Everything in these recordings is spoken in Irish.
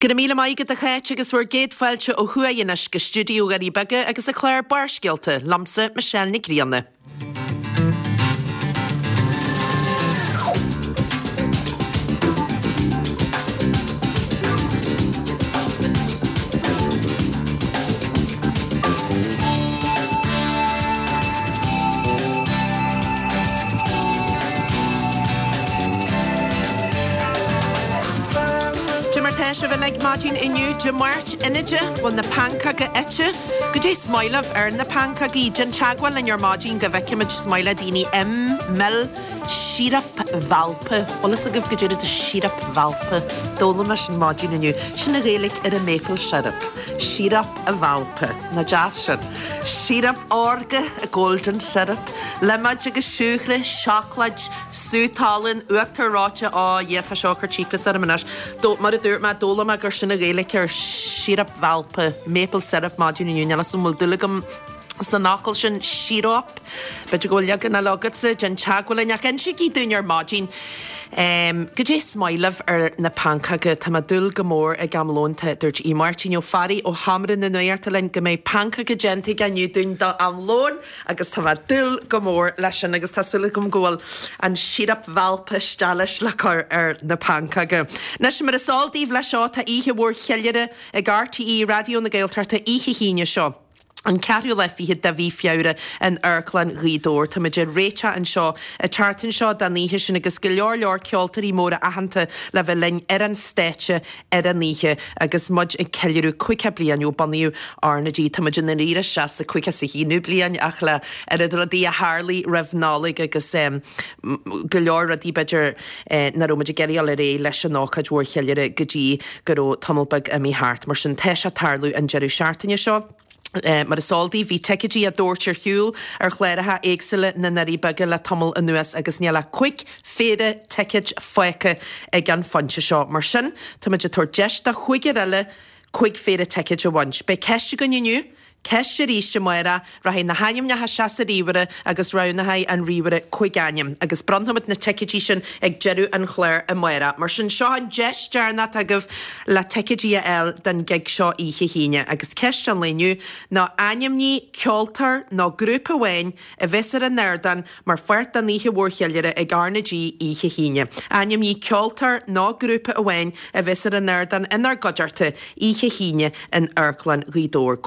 Go raibh míle maith agat a Cháit agus bhur gcéad fáilte ó thuaidh anois go stiúideo Dhoirí Beaga agus an clár Barrscéalta, liomsa Michelle Nic Grianna. Cad é mar tá sibh uilig maidin inniu, Dé Máirt, Inide, bhfuil na pancóga ite? Goidé is maith libh ar na pancógaí? Déan teagmháil linn ar maidin go bhfeicfimid is maith le daoine im, mil, síoraip mhaple. Bhfuil fhios agaibh goidé rud síoraip mhaple? D'fhoghlaim mé sin maidin inniu. Sin an Ghaeilge ar an maple syrup. Síoraip mhaple. Nach deas sin? Síoraip órga, golden syrup, liméid agus siúcra, seacláid, sú talún, uachtar reoite, á Dhia tá seo ag cur cíocras orm anois. Mar a dúirt mé, d'fhoghlaim mé gur sin an Ghaeilge ar síoraip mhaple, maple syrup, maidin inniu, níl 'fhios a'm an bhfuil dúil agam san fhocal sin, síoróip. B'fhéidir go bhfuil leagan eile agatsa, déan teagmháil linn ach insígí dúinn ar maidin goidé is maith libh ar na pancóga. Tá mé ag dúil go mór ag am lóin, tá, dúirt Aodh Máirtín Ó Fearraigh ó Sheomra na Nuachta linn go mbeidh pancóga déanta aige inniu dúinn do am lóin agus tá mé ag dúil go mór leis sin agus tá súil agam go bhfuil an síoraip mhaple isteach leis le cur ar na pancóga. Anois mar is eol daoibh leis seo tá oíche mhór cheiliúrtha ag RTÉ Raidió na Gaeltachta oíche hAoine seo. An ceathrú lá fichead de mhí Feabhra in Amharclann Ghaoth Dobhair. Táimid ag réiteach anseo an tseachtain seo don oíche sin agus go leor leor ceoltóirí móra aitheanta le bheith linn ar an stáitse ar an oíche agus muid ag ceiliúradh 50 bliain ó bunaíodh RnaG. Táimid i ndáiríre isteach sa 51ú bliain ach le oiread rudaí a tharlaigh roimh Nollaig agus go leor rudaí b'fhéidir nach raibh muid ag iarraidh dul ar aghaidh leis an ócáid mhór cheiliúrtha go dtí go raibh tamall beag imithe thart. Mar sin, tá sé ag tarlú an deireadh seachtaine seo. Mar is eol daoibh, bhí ticéidí á dtabhairt ar shiúl ar chláracha éagsúla na nDoirí Beaga le tamall anuas agus níl ach 5 phéire ticéid fágtha ag an phointe seo. Mar sin, táimid ag tabhairt deis do chúigear eile 5 phéire ticéid a bhaint. Beidh ceist againn inniu. Ceist arís amárach, rachaidh na hainmneacha isteach sa ríomhaire agus roghnóidh an ríomhaire 5 ainm agus bronnfaimid na ticéidí sin ag deireadh an chláir amárach. Mar sin, seo an deis deireanach atá agaibh le ticéidí a fháil don ghig seo oíche hAoine. Agus ceist an lae inniu ná ainmnigh ceoltóir nó grúpa amháin a bheas ar an ardán mar pháirt den oíche mhór cheiliúrtha ag RnaG oíche hAoine. Ainmnigh ceoltóir nó grúpa amháin a bheas ar an ardán inár gcuideachta oíche hAoine in Amharclann Ghaoth Dobhair.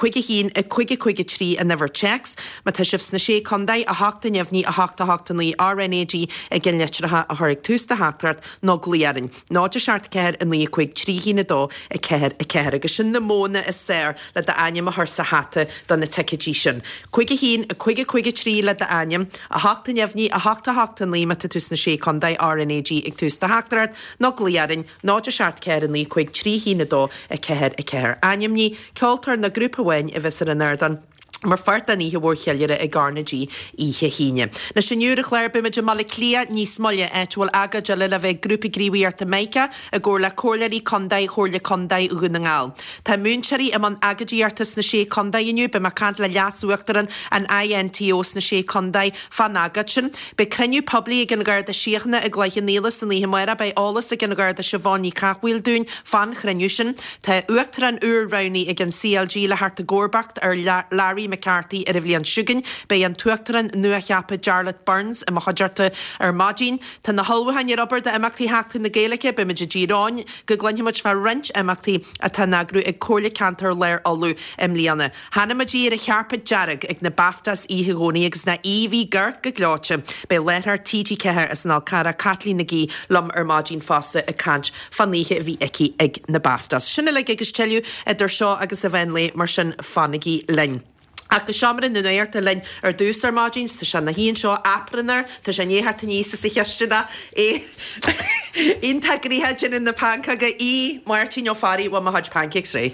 5 1 5 5 3 an uimhir téacs. Má tá sibh sna Sé Contae, 8 neamhní 8 8 9 RnaG ag an litreacha a chur ag tús do theachtaireacht nó glaoigh orainn. 0 7 4 9 5 3 1 2 4 4 Agus sin na modhanna is fearr le d'ainm a chur sa hata do na ticéidí sin. 5 1 5 5 3 le d'ainm, 8 neamhní, 8 8 9 má tá tú sna Sé Contae, RnaG ag tús do theachtaireacht, nó glaoigh orainn, 0 7 4 9 5 3 1 2 4 4. Ainmnigh ceoltóir nó grúpa amháin a bheas ar an ardán mar pháirt den oíche mhór cheiliúrtha ag RnaG oíche hAoine. Anois inniu ar an chlár beimid i mBaile Átha Cliath níos moille, áit a bhfuil agóid eile le bheith ag Grúpa Gníomhaíochta Mica i gcomhar le Comhairleoirí Contae Chomhairle Contae Dhún na nGall. Tá múinteoirí i mbun agóidíochta sna Sé Contae inniu. Beidh mé ag caint le Leas-Uachtarán an INTO sna Sé Contae fán agóid sin. Beidh cruinniú poiblí ag an Gharda Síochána i gCloich Cheann Fhaola san oíche amárach. Beidh eolas ag an Gharda Siobhán Ní Chathmhaoil dúinn fán chruinniú sin. Tá Uachtarán úr roghnaithe ag an CLG le theacht i gcomharbacht ar Larry McCarthy ar an bhliain seo chugainn. Beidh an tUachtarán nuacheaptha Jarlath Burns i mo chuideachta ar maidin. Tá na hullmhúcháin ar obair d'imeachtaí Sheachtain na Gaeilge. Beimid i dTír Eoghain go gcluinfimid fá roinnt imeachtaí atá á n-eagrú ag Comhairle Ceantair Lár Uladh i mbliana. Chonaic muid í ar an chairpéad dearg ag na BAFTAs oíche Dhomhnaigh agus nach aoibh í go gleoite. Beidh láithreoir TG4 as an Fhál Carrach, Caitlín McGee, liom ar maidin fosta ag caint fán oíche a bhí aici ag na BAFTAs. Sin uilig agus tuilleadh idir seo agus an mheán lae, mar sin fanaigí linn. Ach go seomra na nuachta linn ar dtús ar maidin, tá sé ina shuí anseo aprún air, tá sé i ndiaidh theacht aníos as an chisteanach, é iontach gnoitheach ag déanamh na pancóga, Aodh Máirtín Ó Fearraigh, bhfuil mo chuid pancakes réidh?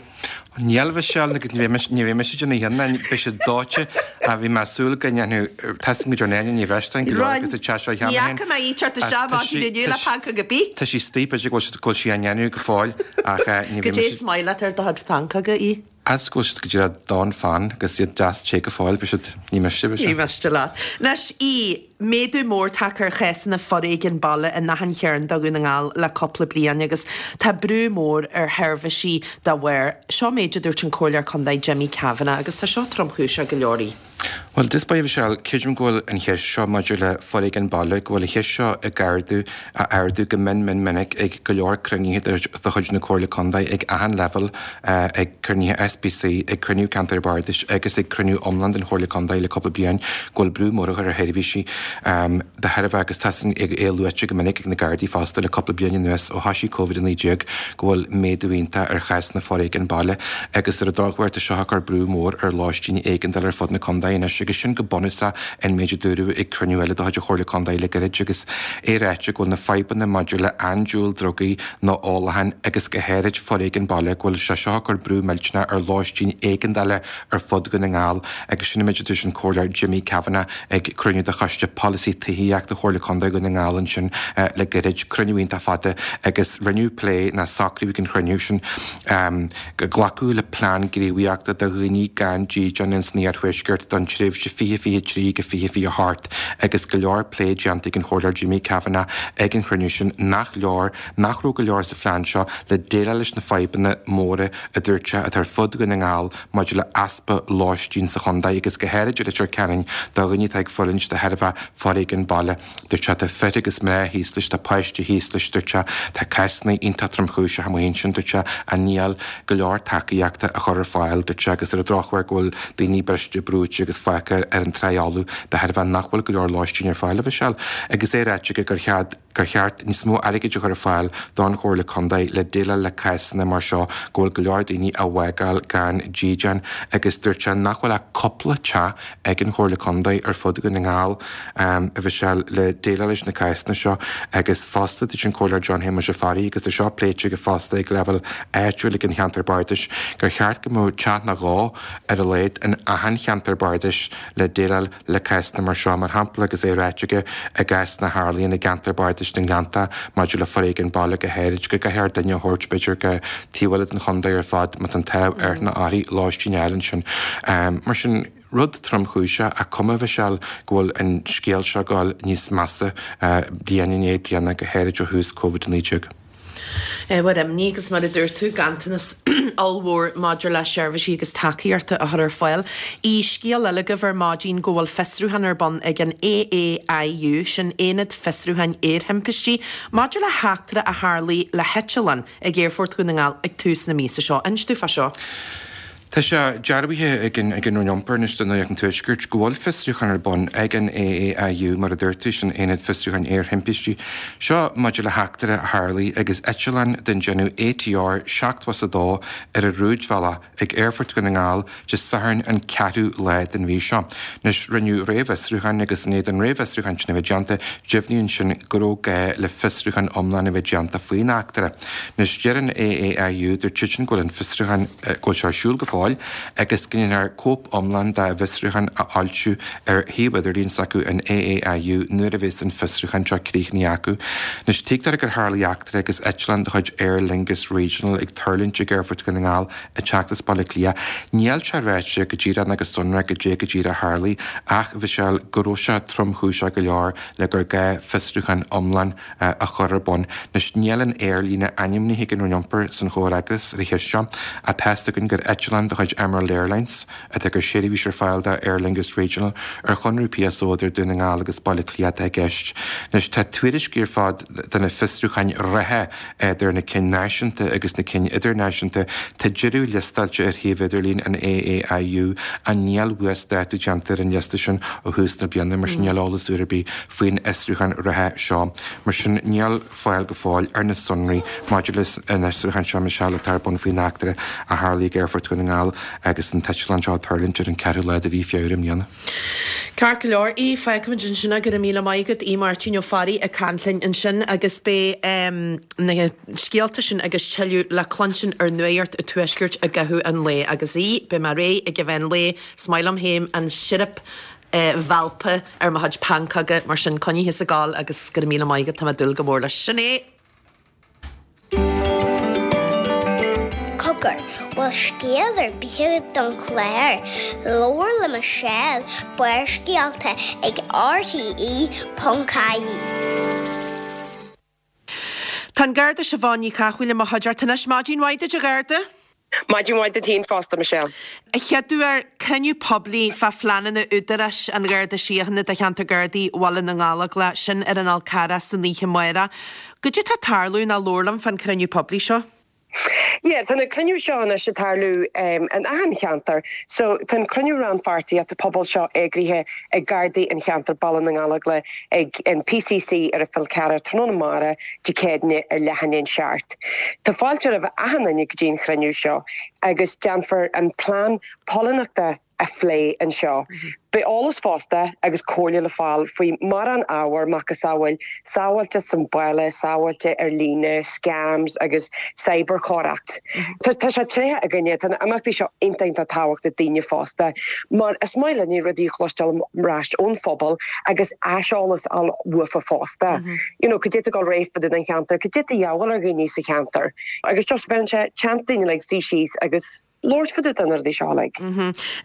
Níl, a Mhichelle, agus ní bheidh ní bheidh mise ag déanamh cheana, beidh siad dóite ach bhí mé ag súil go ndéanfadh, tá a fhios agam go dtearn Áine Ní Bhreisleáin go leor agus a teach seo cheana féin. Ní fhaca mé í teacht isteach maidin inniu le pancóg ar bith. Tá sí istigh, b'fhéidir go bhfuil sí á ndéanamh go fóill ach ní bheidh Goidé is maith leat ar do chuid pancóga, a Aoidh? Fhad go bhfuil siad go díreach donn fann agus iad deas te go fóill, beidh siad, ní miste, beidh Ní miste leat. Anois, í, méadú mór tagtha ar chásanna foréigin baile in achan chearn de Dhún na nGall le cúpla bliain agus tá brú mór ar sheirbhísí dá bharr. Seo méid a dúirt an Comhairleoir Contae Jimmy Kavanagh agus tá seo tromchúiseach go leor í. Bhuel, i dtús báire, a Mhichelle, creidim go bhfuil an cheist seo maidir le foréigean baile, go bhfuil an cheist seo ag ardú, á ardú go mion mion minic ag go leor cruinnithe de chuid na Comhairle Contae ag achan leibhéal, ag cruinnithe SPC, ag cruinniú Ceantair Bardais agus ag cruinniú iomlán den Chomhairle Contae le cúpla bliain, go bhfuil brú mór á chur ar sheirbhísí de thairbhe agus tá sin é luaite go minic ag na Gardaí fosta le cúpla bliain anuas ó thoisigh Covid-19 go bhfuil méadú iontach ar chásanna foréigin baile agus ar an drochuair tá seo ag cur brú mór ar lóistín éigeandála ar fud na contae anois agus sin go bunúsach an méid a dúradh ag cruinniú eile de chuid an Chomhairle Contae le gairid agus é ráite go bhfuil na fadhbanna maidir le andúil drugaí nó ólachán agus go háirid foréigean baile go bhfuil sé seo ag cur brú millteanach ar lóistín éigeandála ar fud Dhún na nGall agus sin an méid a dúirt an Comhairleoir Jimmy Kavanagh ag cruinniú de Choiste Polasaí Tithíochta Chomhairle Contae Dhún na nGall ansin le gairid, cruinniú iontach fada agus rinneadh plé nó socraíodh ag an chruinniú sin go glacadh le plean gníomhaíochta do dhaoine gan dídean ins an Iarthuaisceart don tréimhse 2023-2028 agus go leor plé déanta ag an Chomhairleoir Jimmy Kavanagh ag an chruinniú sin nach leor nach raibh go leor sa phlean seo le déileáil leis na fadhbanna móra a dúirt sé atá ar fud Dhún na nGall maidir le easpa lóistín sa chontae agus go háirid i Leitir Ceanainn do dhaoine atá ag fulaingt de thairbhe foréigean baile. Dúirt sé tá fir agus mná thíos leis, tá páistí thíos leis, dúirt sé, tá cásanna iontach tromchúiseach amuigh ansin, dúirt sé, ach níl go leor tacaíochta á chur ar fáil, dúirt sé, agus ar an drochuair go bhfuil daoine briste, brúite agus fágtha ar an trá fholamh de thairbhe nach bhfuil go leor lóistín ar fáil, a Mhichelle. Agus é ráite aige gur cheart. gur cheart níos mó airgid a chur ar fáil don Chomhairle Contae le déileáil le cásanna mar seo go bhfuil go leor daoine á bhfágáil gan dídean agus dúirt sé nach bhfuil ach cúpla teach ag an Chomhairle Contae ar fud Dhún na nGall a Mhichelle le déileáil leis na cásanna seo agus fosta dúirt an Comhairleoir John Shéamuis Ó Fearraigh agus tá seo pléite aige fosta ag leibhéal áitiúil ag an cheantar bardais gur cheart go mbeadh teach nó dhó ar a laghad in achan cheantar bardais le déileáil le cásanna mar seo, mar shampla, agus é ráite aige i gcásanna a tharlaíonn i gceantar bardais na nGleannta maidir le foréigean baile go háirid, go gcaithfear duine a thabhairt, b'fhéidir, go taobh eile den chontae ar fad má tá an t-ádh air nó uirthi lóistín a fháil ansin. Mar sin, rud tromchúiseach ach cuma, a Mhichelle, go bhfuil an scéal seo ag dul níos measa bliain i ndiaidh bliana, go háirid ó thús Covid-19. Ábhar imní agus mar a dúirt tú, ganntanas ollmhór maidir le seirbhísí agus tacaíochta a chur ar fáil. I scéal eile agaibh ar maidin go bhfuil fiosrúchán ar bun ag an AAIU, sin Aonad Fiosrúcháin Aerthimpistí, maidir le heachtra a tharlaigh le heiteallán ag Aerfort Dhún na nGall ag tús na míosa seo. Inis dúinn fá seo. Tá sé dearbhaithe ag an Roinn Iompair anois do Nuacht an Tuaiscirt go bhfuil fiosrúchán ar bun ag an AAIU, mar a dúirt tú, sin Aonad Fiosrúcháin Aerthimpistí. Seo maidir le heachtra a tharlaigh agus eitleán den déanamh ATR 72 ar a rúidbhealach ag Aerfort Dhún na nGall Dé Sathairn an ceathrú lá den mhí seo. Anois, rinneadh réamhfhiosrúchán agus i ndiaidh don réamhfhiosrúchán sin a bheith déanta, deimhníodh ansin go raibh gá le fiosrúchán iomlán a bheith déanta faoin eachtra. Anois, deir an AAIU, dúirt siadsan go bhfuil an fiosrúchán, go bhfuil sé ar siúl go fóill agus go ndéanfar cóip iomlán dá bhfiosrúchán a fhoilsiú ar shuíomh idirlín s'acu, an AAIU, nuair a bheas an fiosrúchán seo críochnaithe acu. Anois, tuigtear gur tharlaigh eachtra agus eitleán de chuid Aer Lingus Regional ag tuirlingt ag Aerfort Dhún na nGall ag teacht as Baile Átha Cliath. Níl sé ráite go díreach ná go sonrach goidé go díreach a tharlaigh ach bhí sé go raibh sé tromchúiseach go leor le gur gá fiosrúchán iomlán a chur ar bun. Anois, níl an aerlíne ainmnithe ag an Roinn Iompair san chomhfhreagras ar an cheist seo, ach tá's againn gur eitleán de chuid Emerald Airlines atá ag cur seirbhís ar fáil do Aer Lingus Regional ar chonradh PSO idir Dún na nGall agus Baile Átha Cliath atá i gceist. Anois, tá tuairiscí ar fad de na fiosrúcháin reatha idir na cinn náisiúnta agus na cinn idirnáisiúnta. Tá deireadh liostáilte ar shuíomh idirlín an AAIU ach níl uasdátú déanta ar an liosta sin ó thús na bliana, mar sin níl eolas úr ar bith faoin fhiosrúchán reatha seo. Mar sin, níl fáil go fóill ar na sonraí maidir leis an fhiosrúchán seo, Michelle, atá ar bun faoin eachtra a tharlaigh ag Aerfort Dhún na nGall agus an t-eitleán seo ag tuirlingt ar an ceathrú lá de mhí Feabhra i mbliana. Ceart go leor, í, fágfaimid ansin é, go raibh míle maith agat, Aodh Máirtín Ó Fearraigh ag caint linn ansin agus beidh na scéalta sin agus tuilleadh le cluinstin ar Nuacht an Tuaiscirt i gcaitheamh an lae agus í, beidh mé réidh ag an mheán lae, is maith liom féin an sirip mhaple ar mo chuid pancóga, mar sin coinnigh thusa ag gabháil agus go raibh míle maith agat, tá mé ag dúil go mór leis. Sin é! Cogar. Cogar, bhfuil scéal ar bith agat don chlár? Labhair le Michelle, Barrscéalta ag rte.ie. Tá an Garda Siobhán Ní Chathmhaoil i mo chuideachta anois. Maidin mhaith duit a Gharda. Maidin mhaith duit féin fosta, Michelle. A chéaduair, cruinniú poiblí fá phleananna Údarás an Gharda Síochána do cheantar Gardaí Bhaile na nGallóglach, sin ar an Fhál Carrach san oíche amárach. Goidé tá ag tarlú ná labhair liom fán cruinniú poiblí seo. Yeah, tá na cruinniú seo anois ag tarlú in achan cheantar. So tá an cruinniú rannpháirtíochta pobail seo eagraithe ag Gardaí an cheantair Baile na nGallóglach ag an PCC ar an Fhál Carrach tráthnóna amárach Dé Céadaoine ar leath i ndiaidh a seacht. Tá fáilte roimh achan duine go dtí an chruinniú seo agus déanfar an plean póilíneachta a phlé anseo. Beidh eolas fosta agus comhairle le fáil faoi mórán ábhar, macasamhail sábháilteacht sa bhaile, sábháilte ar líne, scams agus cyberchoireacht. Tá sé tréithe againne, tá na imeachtaí seo iontach iontach tábhachtach daoine fosta mar is maith linne rudaí a chloisteáil ar ais ón phobal agus aiseolas a fháil uafa fosta. You know, cad é tá ag dul ar aghaidh fá dtaobh den cheantar, cad é tá de dhíobháil ar dhaoine sa cheantar agus just bheireann sé chance daoine like suí síos agus labhairt fá dtaobh de na rudaí seo uilig.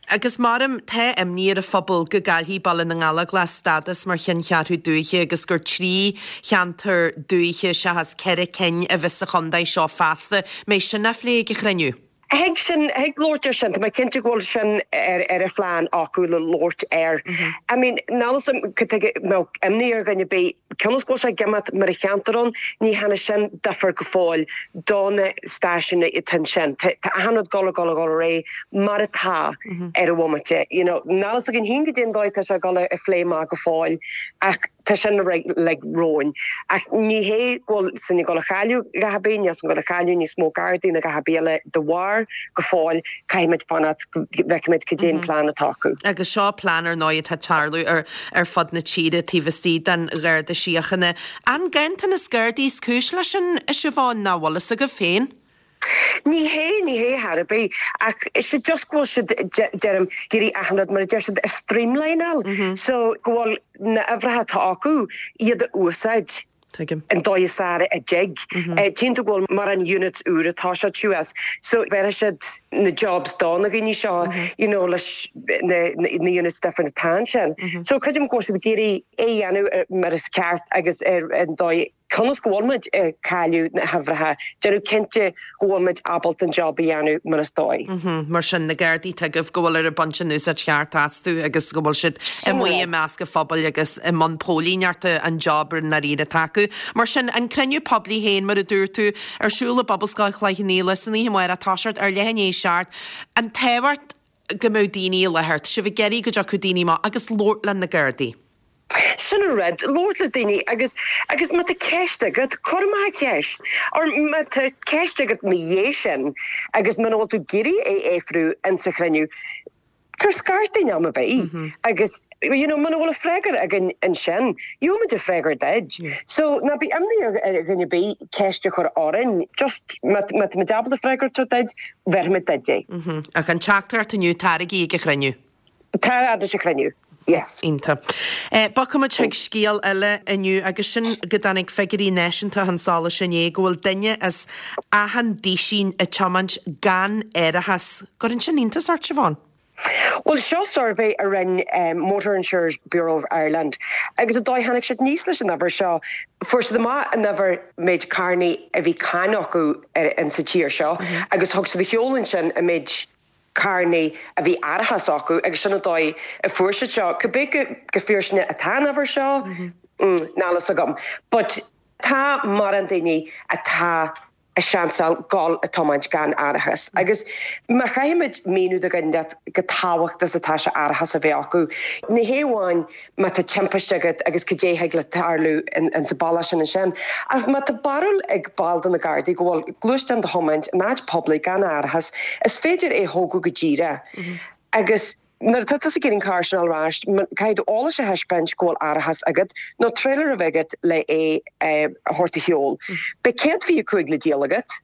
Agus maram, tá imní ar an phobal go gcaillfidh Baile na nGallóglach stádas mar cheanncheathrú dúiche agus gur 3 cheantar dúiche seachas 4 cinn a bheas sa chontae seo feasta. Mbeidh sin á phlé ag an chruinniú? Thig sin, thig labhairt ar sin, tá mé cinnte go bhfuil sin ar ar an phlean acu le labhairt air. I mean, níl 'fhios a'm cad tuige a mbeadh imní ar dhuine ar bith, cionn is go bhfuil sé ag imeacht mar a cheantar ann, ní dhearna sin difear go fóill do na stáisiúin atá ansin. Tá achan rud dul ag dul ag dul ar aghaidh mar atá ar an bhomaite. You know, níl 'fhios againn féin goidé an dóigh atá sé ag dul a phlé amach go fóill ach tá sin like romhainn. Ach ní hé go bhfuil sinn ag dul a chailleadh a dhath ar bith, níl sinn ag dul a chailleadh níos mó Gardaí ná a dhath ar bith eile de bharr go fóill caithfimid fanacht go bhfeicfimid cad é an plean atá acu. Agus seo plean ar ndóigh atá ag tarlú ar ar fud na tíre taobh istigh den Gharda Síochána. An ganntanas Gardaí is cúis leis sin, a Siobhán, ná bhfuil fhios agaibh féin? Ní hé, ní hé thar ar bith, ach is é just go bhfuil siad, deirim, ag iarraidh achan rud, mar a deir siad, a streamlineáil, so go bhfuil na huimhreacha atá acu, iad a úsáid. Tuigim. an dóigh is fearr a dtig. Tchíonn tú go bhfuil mórán units úr atá sé suas so bhéarfaidh siad na jobs do na dhaoine seo you know leis na na units different atá ansin. So creidim go bhfuil siad ag iarraidh é a dhéanamh mar is ceart agus ar an dóigh cionn is go bhfuil muid ag cailleadh na huimhreacha, déanamh cinnte go bhfuil muid ábalta an job a dhéanamh mar is dóigh. Mar sin, na Gardaí atá agaibh go bhfuil ar ag baint an úsáid cheart astu agus go bhfuil siad amuigh i measc an phobail agus i mbun póilíneachta an job i ndáiríre atá acu. Mar sin, an cruinniú poiblí féin, mar a dúirt tú, ar siúl i bPobalscoil Chloich Cheann Fhaola san oíche amárach, toiseacht ar leath i ndiaidh a seacht. An tábhacht go mbeadh daoine i láthair, tá sibh ag iarraidh go dtiocfadh daoine amach agus labhairt le na Gardaí. Sin an rud, labhairt le daoine agus, agus má tá ceist agat, cuir amach an cheist. Or má tá ceist agat ina dhiaidh sin agus muna bhfuil tú ag iarraidh é a fhiafrú insa chruinniú, tabhair scairt dúinn am ar bith agus you know muna bhfuil an freagra againn ansin, gheobhaimid an freagra duit. So ná bí imní ar dhuine ar bith ceist a chur orainn, just má má táimid ábalta freagra a thabhairt duit, bhéarfaimid duit é. Ach an teachtaireacht inniu, taraigí ag an chruinniú. Tar fhad leis an chruinniú. Yes. Iontach. Bogfaimid chuig scéal eile inniu agus sin go dtáinig figiúirí náisiúnta chun solais inné go bhfuil duine as achan duisín ag tiomáint gan árachas. Gcuireann sin iontas ort, Siobhán? Bhuel, seo suirbhé a rinne Motor Insurers Bureau of Ireland agus an dóigh a tháinig siad aníos leis an uimhir seo, fuair siad amach an uimhir méid carrannaí a bhí cáin acu in sa tír seo agus thug siad a sheoladh ansin an méid carrannaí a bhí árachas acu agus sin an dóigh a fuair siad seo. Cibé chomh fíor sin atá an uimhir seo, níl fhios agam. But tá mórán daoine atá ag seansáil dul ag tiomáint gan árachas agus má chaithfimid míniú do dhuine chomh tábhachtach is atá sé árachas a bheith acu, ní hé amháin má tá timpiste agat agus cad é thig le tarlú in sa bealach sin ansin. Ach má tá barúil ag ball de na Gardaí go bhfuil gluaisteán do thiomáint in áit poiblí gan árachas, is féidir é a thógadh go díreach agus nuair atá tusa ag iarraidh an carr sin a fháil ar ais, caithfidh tú eolas a thaispeáint go bhfuil árachas agat nó trailer a bheith agat le é a thabhairt a sheol. Beidh 125 le díol agat.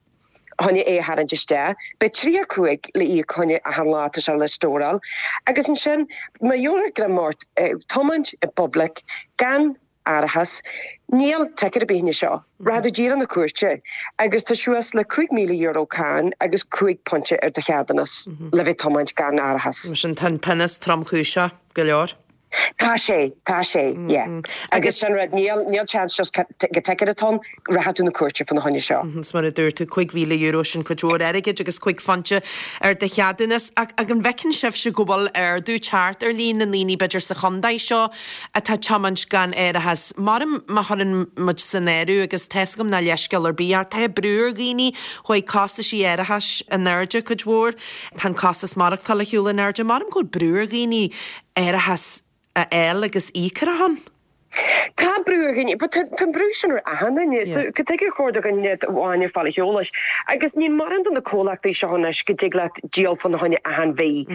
choinne é a tharraingt isteach. Beidh 35 le íoc choinne achan lá atá sé le stóráil. Agus ansin, má gheobhtar greim ort ag tiomáint i bpoiblic gan. árachas, níl ticket ar bith fá choinne seo. Rachaidh tú díreach 'na cúirte agus tá suas le €5,000 cáin agus 5 pointe ar do cheadúnas le bheith tiomáint gan árachas. Mar sin tá an pionós tromchúiseach go leor. Tá sé, tá sé, yeah. Agus sin rud, níl, níl chance just go ticket atá ann, rachaidh tú 'na cúirte fá na choinne seo. Is mar a dúirt tú, €5,000 sin cuid mhór airgid agus 5 phointe ar do cheadúnas. Ach an bhfeiceann sibhse go bhfuil ardú teacht ar líon na ndaoine b'fhéidir sa chontae seo atá tiomáint gan árachas? Maram má chuireann muid san áireamh, agus tá's agam nach leithscéal ar bith, ach tá brú ar dhaoine, chuaigh costaisí árachais in airde cuid mhór, tá an costas maireachtála ar shiúl in airde, maram go bhfuil brú ar dhaoine árachas a fháil agus íoc ar a shon. Tá brú ar dhaoine, but tá an brú sin ar achan duine. So cad tuige ar chóir do dhuine amháin ar fáil a heolais? Agus níl mórán de na comhlachtaí seo anois go dtig leat díol fá na choinne achan mhí.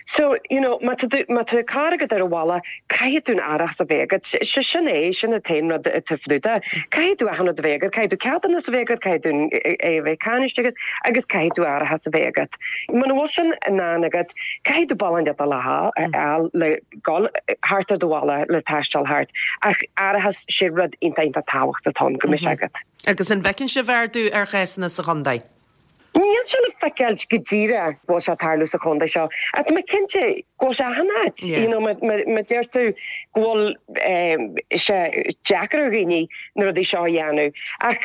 So, you know, má tá tú, má tá carr agat ar an bhaile, caithfidh tú an árachas a bheith agat. Sé sin é, sin an t-aon rud atá fnúta. Caithfidh tú achan rud a bheith agat, caithfidh tú ceadúnas a bheith agat, caithfidh tú é a bheith cáiniste agat agus caithfidh tú árachas a bheith agat. Muna bhfuil sin in ann agat, caithfidh tú bealach inteacht le fháil le gabháil thart ar do bhaile le taisteal thart. Ach árachas, sé rud iontach iontach tábhachtach atá ann go mbeidh sé agat. Agus an bhfeiceann sibh ardú ar chásanna sa chontae? Níl sé le feiceáil go díreach go bhfuil sé ag tarlú sa chontae seo ach tá mé cinnte go bhfuil sé achan áit. You know, má deir tú go bhfuil sé deacair ar dhaoine na rudaí seo a dhéanamh ach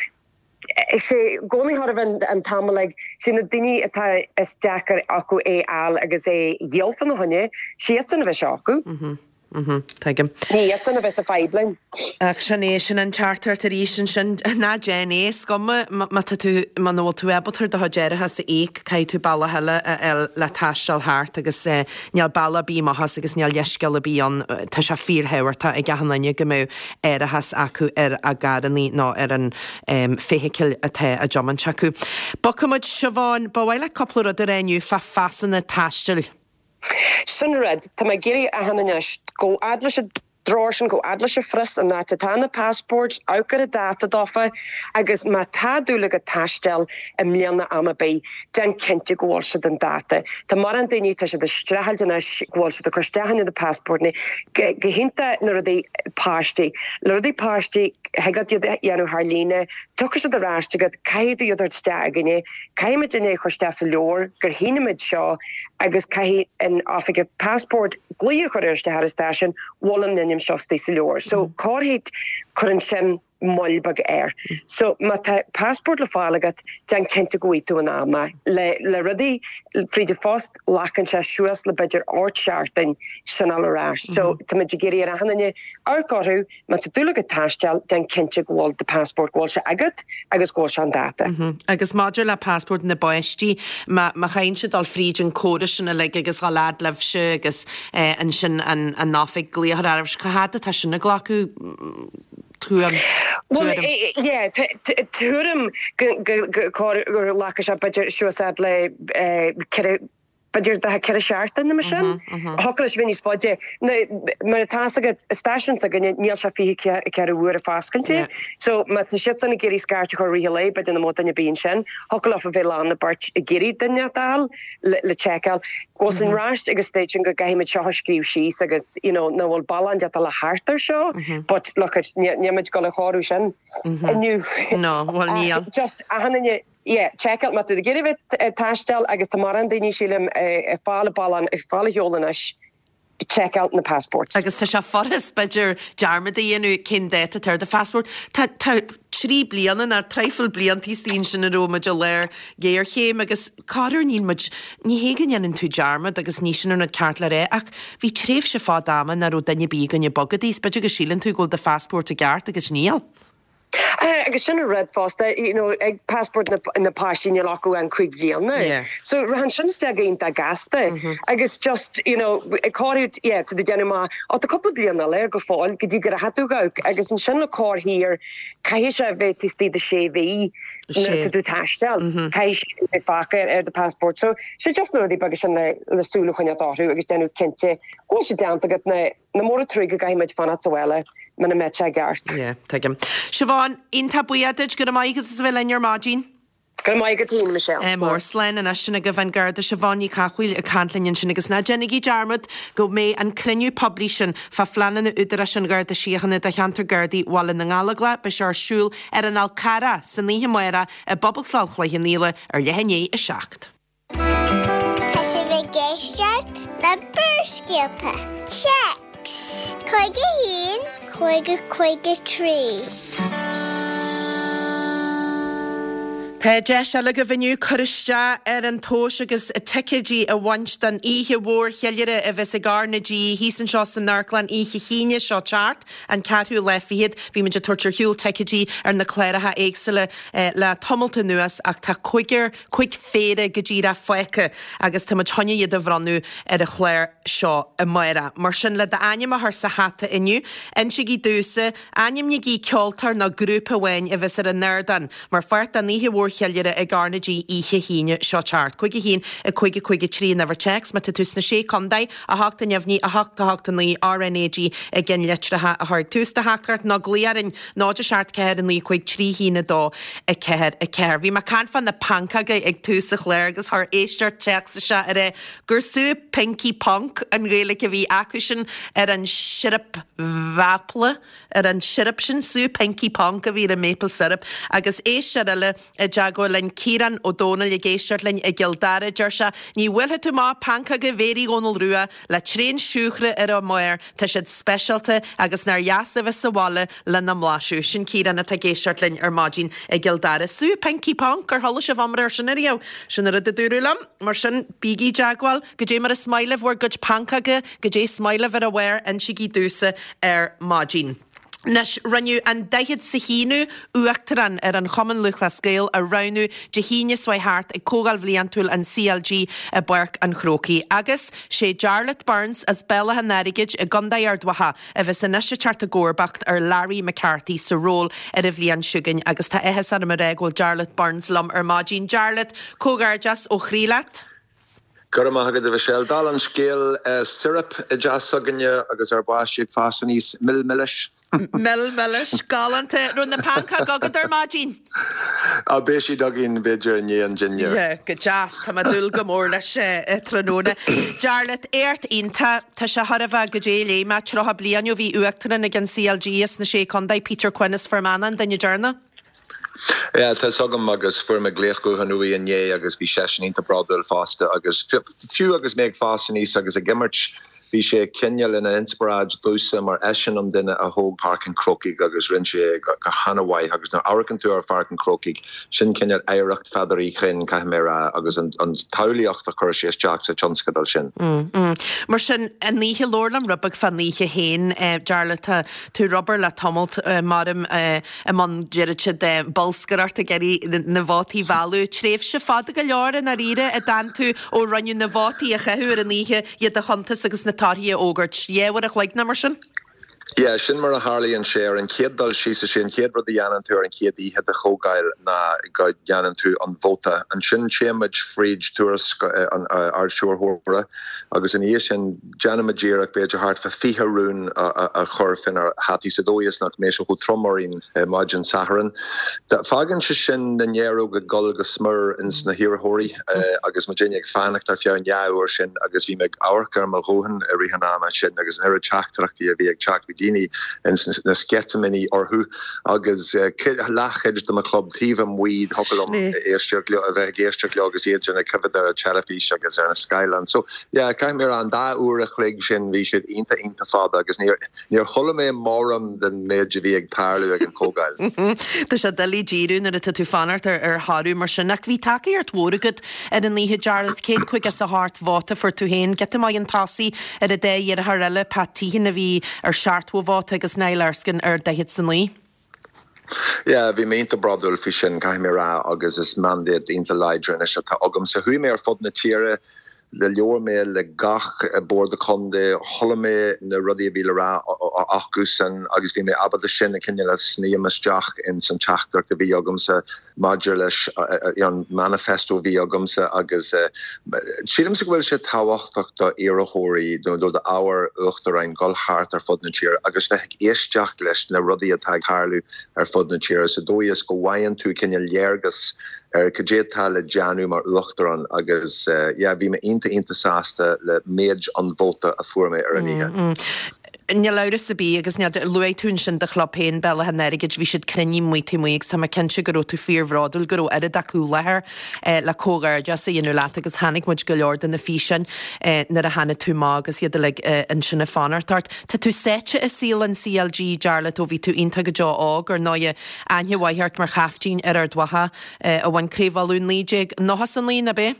Is é i gcónaí chóir a bheith an t-am uilig, sé na daoine atá is deacair acu é fháil agus é dhíol fá na choinne, sé iadsan a bheidh seo acu. Tuigim. Ní iadsan a bheas sa fadhb linn. Ach sin é, sin an teachtaireacht arís ansin, ná déan é, is cuma má tá tú, muna bhfuil tú ábalta do chuid árachas a íoc, caithfidh tú bealach eile a fháil le taisteal thart agus níl bealach ar bith amach as agus níl leithscéal ar bith ann, tá sé fíorthábhachtach ag achan duine go mbeadh árachas acu ar a gcarrannaí nó ar an feithicil atá á dtiomáint acu. Bogfaidh muid, Siobhán, ba mhaith leat cúpla rud a rá inniu fá phasanna taistil. Sin rud, tá mé ag iarraidh achan anois, gabh fhad leis an drár sin, gabh fhad leis an phrios, an áit atá na passports, amharc ar an dáta dófa agus má tá dúil agat taisteal i mbliana am ar bith, déan cinnte go bhfuil siad an dáta. Tá mórán daoine, tá siad ag streachailt anois go bhfuil siad ag cur isteach na passportanna, go hiontach na rudaí páistí. Le rudaí páistí, thig leat iad a dhéanamh thar líne, tiocfaidh siad ar ais agat, caithfidh tú iad a thabhairt isteach againne, caithfidh muidinne é a chur isteach sa leabhar gur shínigh muid seo agus caithfidh an oifigeach passport glaoch a chur ar isteach ar an stáisiún, bhfuil an ainm seo istigh sa leabhar. So, corruair cuireann sin. moill beag air. So má tá passport le fáil agat, déan cinnte go bhfaighidh tú in am é. Le le rudaí fríd an phost, glacann sé suas le b'fhéidir ocht seachtain sin a fháil ar ais. So tá muid ag iarraidh ar achan duine amharc orthu, má tá dúil agat taisteal, déan cinnte go bhfuil do passport, go bhfuil sé agat agus go bhfuil sé an dáta. Agus maidir le passport na bpáistí, má má chaitheann siad dul fríd an córas sin uilig agus dhul fhad libhse agus ansin an an oifig glaoch ar ais, cá fhad atá sin ag glacadh? tuairim. Bhuel, yeah, tuairim go gur ghlacadh sé b'fhéidir suas fhad le ceithre, b'fhéidir 4 seachtain nó mar sin. Thiocfadh leis a bheith níos faide. Mar atá fhios agat, stáisiún s'againne, níl sé 24 uair ag foscailt. So má tá siadsan ag iarraidh scairt a chur i rith an lae, b'fhéidir nach mbeadh duine ar bith ansin. Thiocfadh leofa bheith lán na beirt ag iarraidh duine a fháil. le seiceáil. Go bhfuil san raist agus station go gcaithfidh muid seo a scríobh síos agus you know nach bhfuil bealach inteacht le thart ar seo but look at níl muid ag dul a chóiriú sin inniu. No, bhuel níl. Just achan duine yeah seiceáil má tá tú ag iarraidh bheith ag taisteal agus tá mórán daoine sílim ag fáil a bealach ag fáil a sheol anois seiceáil na passports. Agus tá sé furast, b'fhéidir, dearmad a dhéanamh cén dáta atá ar do phassport. Tá, tá trí bliana, nó traidhfil bliantaí istigh ansin a raibh muid i lár géarchéim agus corruair níl muid, ní hé go ndéanann tú dearmad agus ní sin an rud ceart le rá ach bhí tréimhse fada ama nach raibh duine ar bith againn ag bogadh is b'fhéidir go síleann tú go bhfuil do phassport i gceart agus níl. Agus sin an rud fosta, you know, ag passport na, na páistí níl acu an 5 bhliana. Yeah. So rachann sin isteach go iontach gasta. Agus just, you know, ag corruair, yeah, tá tú ag déanamh amach, ó tá cúpla bliain eile air go fóill go dtí go rachaidh tú amach agus ansin le cur thiar, caithfidh sé a bheith taobh istigh de sé mhí nuair atá tú ag taisteal. Caithfidh sé bheith fágtha ar, ar do passport. So, sé just na rudaí beaga sin le, le súil a choinneáil orthu agus déanamh cinnte go bhfuil sé déanta agat na, Nach mór an truaigh go gcaithfidh muid fanacht sa bhaile muna mbeadh sé i gceart. Yeah, tuigim. Siobhán, iontach buíoch duit, go raibh maith agat as a bheith linn ar maidin. Go raibh maith agat féin, a Michelle. Ádh mór. Slán anois. Sin agaibh an Garda Siobhán Ní Chathmhaoil ag caint linn ansin agus ná déanaigí dearmad go mbeidh an cruinniú poiblí sin fá phleananna Údarás an Gharda Síochána do cheantar Gardaí Bhaile na nGallóglach, beidh sé ar siúl ar an Fhál Carrach san oíche amárach i bPobalscoil Chloich Cheann Fhaola ar leath i ndiaidh 7. Tá sibh ag éisteacht le Barrscéalta. Téacs 51 50 53. Tá deis eile agaibh inniu cur isteach ar an tomhas agus ticéidí a bhaint don oíche mhór cheiliúrtha a bheas ag R na G thíos anseo san Amharclann oíche hAoine seo teacht, an ceathrú lá fichead. Bhí muid ag tabhairt ar shiúl ticéidí ar na cláracha éagsúla le tamalt anuas ach tá cúigear, 5 phéire go díreach fágtha agus tá muid chun iad a bhronnadh ar an chlár seo amárach. Mar sin, le d'ainm a chur sa hata inniu, insígí domhsa, ainmnígí ceoltóir nó grúpa amháin a bheas ar an ardán mar pháirt den oíche mhór cheiliúrtha ag R na G oíche hAoine seo teacht. 5 1 5 5 3 an uimhir téacs má tá tú sna Sé Contae, 8 neamhní, 8 8 9 RNAG i gceannlitreacha a chur ag tús do theachtaireacht nó glaoigh orainn 0 7 4 9 5 3 1 2 4 4. Bhí mé ag caint fá na pancóga ag tús an chláir agus chuir éisteoir téacs isteach ag rá gur sú Pinky Ponc an Ghaeilge a bhí acusan ar an siorap mhaple, ar an siorap sin, sú Pinky Ponc a bhí ar an maple syrup. Agus éisteoir eile i dteagmháil linn, Ciarán Ó Dónaill ag éisteacht linn i gCill Dara, deir sé, Ní bhuailfidh tú amach pancóga Mhéirí Dhónaill Rua le tréan siúcra ar a mbarr, tá siad speisialta agus nár dheas a bheith sa bhaile lena mblaiseadh. Sin Ciarán atá ag éisteacht linn ar maidin i gCill Dara. Sú Pinky Ponc, ar chuala sibh iomrá air sin ariamh? Sin an rud a dúradh liom. Mar sin, bígí i dteagmháil. Goidé mar is maith libh bhur gcuid pancóga, goidé is maith libh ar a bharr, insígí domhsa ar maidin. Anois, rinneadh an daichead 's a haonú Uachtarán ar an Chumann Lúthchleas Gael a roghnú Dé hAoine seo chuaigh thart ag Comhdháil Bhliantúil an CLG i bPáirc an Chrócaigh. Agus sé Jarlath Burns as Béal Átha an Airgid i gContae Ard Mhacha a bheas anois ag teacht i gcomharbacht ar Larry McCarthy sa ról ar an bhliain seo chugainn agus tá áthas orm a rá go bhfuil Jarlath Burns liom ar maidin. Jarlath, comhghairdeas ó chroí leat. Go raibh maith agat, a Mhichelle. Dála an scéil, syrup i dteach s'againne agus ár bpáistí ag fás aníos, mil milis. Mil milis, galánta. Raibh na pancóga agat ar maidin? Á, beidh siad againn b'fhéidir i ndiaidh an dinnéir. Yeah, go deas. Tá mé ag dúil go mór leis tráthnóna. Jarlath, éacht iontach. Tá sé chóir a bheith goidé a léigh mé, 30 bliain ó bhí Uachtarán ag an CLG as na Sé Contae, Peter Quinn as Fear Manach an duine deireanach. Yeah, tá 'fhios agam agus fuair mé glaoch gutháin uaidh inné agus bhí seisean iontach bródúil fosta agus fiú agus mé ag fás aníos agus ag imirt, bhí sé cineál ina inspioráid domhsa mar eisean an duine a thóg Páirc an Chrócaigh agus rinne sé é go han-mhaith agus nuair a amharcann tú ar Pháirc an Chrócaigh, sin cineál oidhreacht Pheadair Uí Chuinn, caithfidh mé a rá, agus an tsamhlaíocht a chuir sé isteach sa tionscadal sin. Mar sin, an oíche, labhair liom rud beag fán oíche féin, Jarlath, tá tú ar obair le tamalt, maram, i mbun, deireadh siad, bolscaireacht ag iarraidh na vótaí a mhealladh. Tréimhse fada go leor i ndáiríre a d'fhan tú ó rinneadh na vótaí a chaitheamh ar an oíche, iad a chuntas agus na torthaí a fhógairt. Dhá uair a chloig nó mar sin? Yeah, sin mar a tharlaíonn sé. Ar an chéad dul síos, is é an chéad rud a dhéanann tú ar an chéad oíche de chomhdháil ná go ndéanann tú an vóta. Ansin téann muid fríd tuairisc an Ard-Stiúrthóra agus ina dhiaidh sin, Déanaimid iarracht b'fhéidir thart fá 20 rún a chur fénár hataí sa dóigh is nach mbeidh sé chomh trom orainn maidin Sathairn. Fágann sé sin na néaróga ag dul go smior ins na hiarrthóirí agus muidinne ag fanacht ar feadh an dhá uair sin agus bhí mé ag amharc ar mo ghuthán i rith an ama sin agus an oiread teachtaireachtaí a bhí ag teacht, bhí daoine ins na sceitimíní orthu agus leathchuid de mo chlub taobh amuigh, thiocfadh liom éisteacht leo, a bheith ag éisteacht leo agus iad sin ag coimhéad ar an teilifís agus ar na scáileáin. So, Yeah, caithfidh mé a rá, an dá uair a chloig sin, bhí siad iontach, iontach fada agus níor, níor chuala mé mórán den méid a bhí ag tarlú ag an chomhdháil. Tá sé doiligh díriú nuair atá tú ag fanacht ar, ar thoradh mar sin. Ach bhí tacaíocht mhór agat ar an oíche, Jarlath, 158 vóta fuair tú féin. Giota maith chun tosaigh ar an dá iarrthóir eile, Pat Teehan a bhí ar 70 vóta agus Niall Erskine ar 49. Yeah, bhí mé iontach bródúil faoi sin, caithfidh mé a rá, agus is mandate iontach láidir anois atá agamsa. Chuaigh mé ar fud na tíre, labhair mé le gach bord contae, chuala mé na rudaí a bhí le rá acusan agus bhí mé ábalta sin a cineál a shníomh isteach ins an teachtaireacht a bhí agamsa. maidir leis an manifesto a bhí agamsa agus sílimse go bhfuil sé tábhachtach do iarrthóirí nó do d'ábhar uachtaráin dul thart ar fud na tíre agus bheith ag éisteacht leis na rudaí atá ag tarlú ar fud na tíre sa dóigh is go bhfaigheann tú cineál léargas ar cad é atá le déanamh mar uachtarán agus yeah bhí mé iontach iontach sásta le méid an vóta a fuair mé ar an oíche. Níl amhras ar bith agus níl, luaigh tú ansin do chlub féin, Béal Átha an Airgid, bhí siad cruinnithe amuigh taobh amuigh agus tá mé cinnte go raibh tú fíorbhródúil go raibh oiread acu i láthair le comhghairdeas a dhéanamh leat agus chonaic muid go leor de na físeáin nuair a tháinig tú amach agus iad uilig ansin ag fanacht ort. Tá tú sáite i saol an CLG, Jarlath, ó bhí tú iontach go deo óg, ar ndóighe, aithne mhaith ort mar chaiftín ar Ard Mhacha a bhain Craobh Uladh 1999, ab é?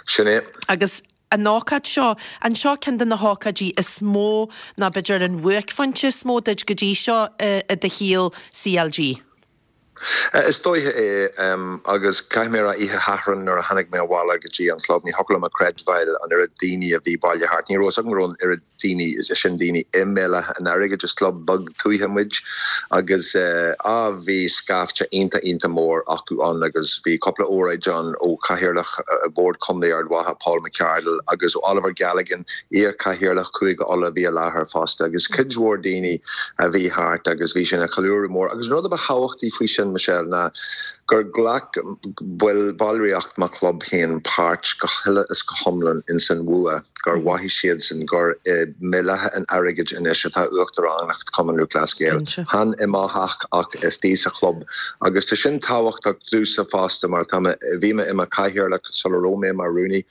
Sin é. Agus an ócáid seo, an seo ceann de na hócáidí is mó nó b'fhéidir an bhuaicphointe is mó duit go dtí seo i do shaol CLG? Is dóiche é, agus caithfidh mé a rá, oíche Shathairn nuair a tháinig mé abhaile go dtí an club, ní thiocfadh liom a chreidbheáil an oiread daoine a bhí bailithe thart. Ní raibh fhios agam go raibh an oiread daoine sin daoine i mBéal Átha an Airgid, is club beag tuaithe muid, agus á bhí scaifte iontach iontach mór acu ann agus bhí cúpla óráid ann ó Chathaoirleach Bhord Contae Ard Mhacha, Paul McArdle, agus ó Oliver Galligan, iar-Chathaoirleach Chúige Uladh a bhí i láthair fosta agus cuid mhór daoine a bhí thart agus bhí sé ina cheiliúradh mór. Agus an rud a ba thábhachtaí faoi sin, Michelle, ná gur ghlac baill, ballraíocht mo chlub féin páirt go huile is go hiomlán ins an bhua, gur mhothaigh siadsan gur i mBéal Átha an Airgid anois atá Uachtaránacht Chumann Lúthchleas Gael. Chan i mo theach ach istigh sa chlub. Agus tá sin tábhachtach domhsa fosta mar tá mé, bhí mé i mo chathaoirleach sula raibh mé mar rúnaí.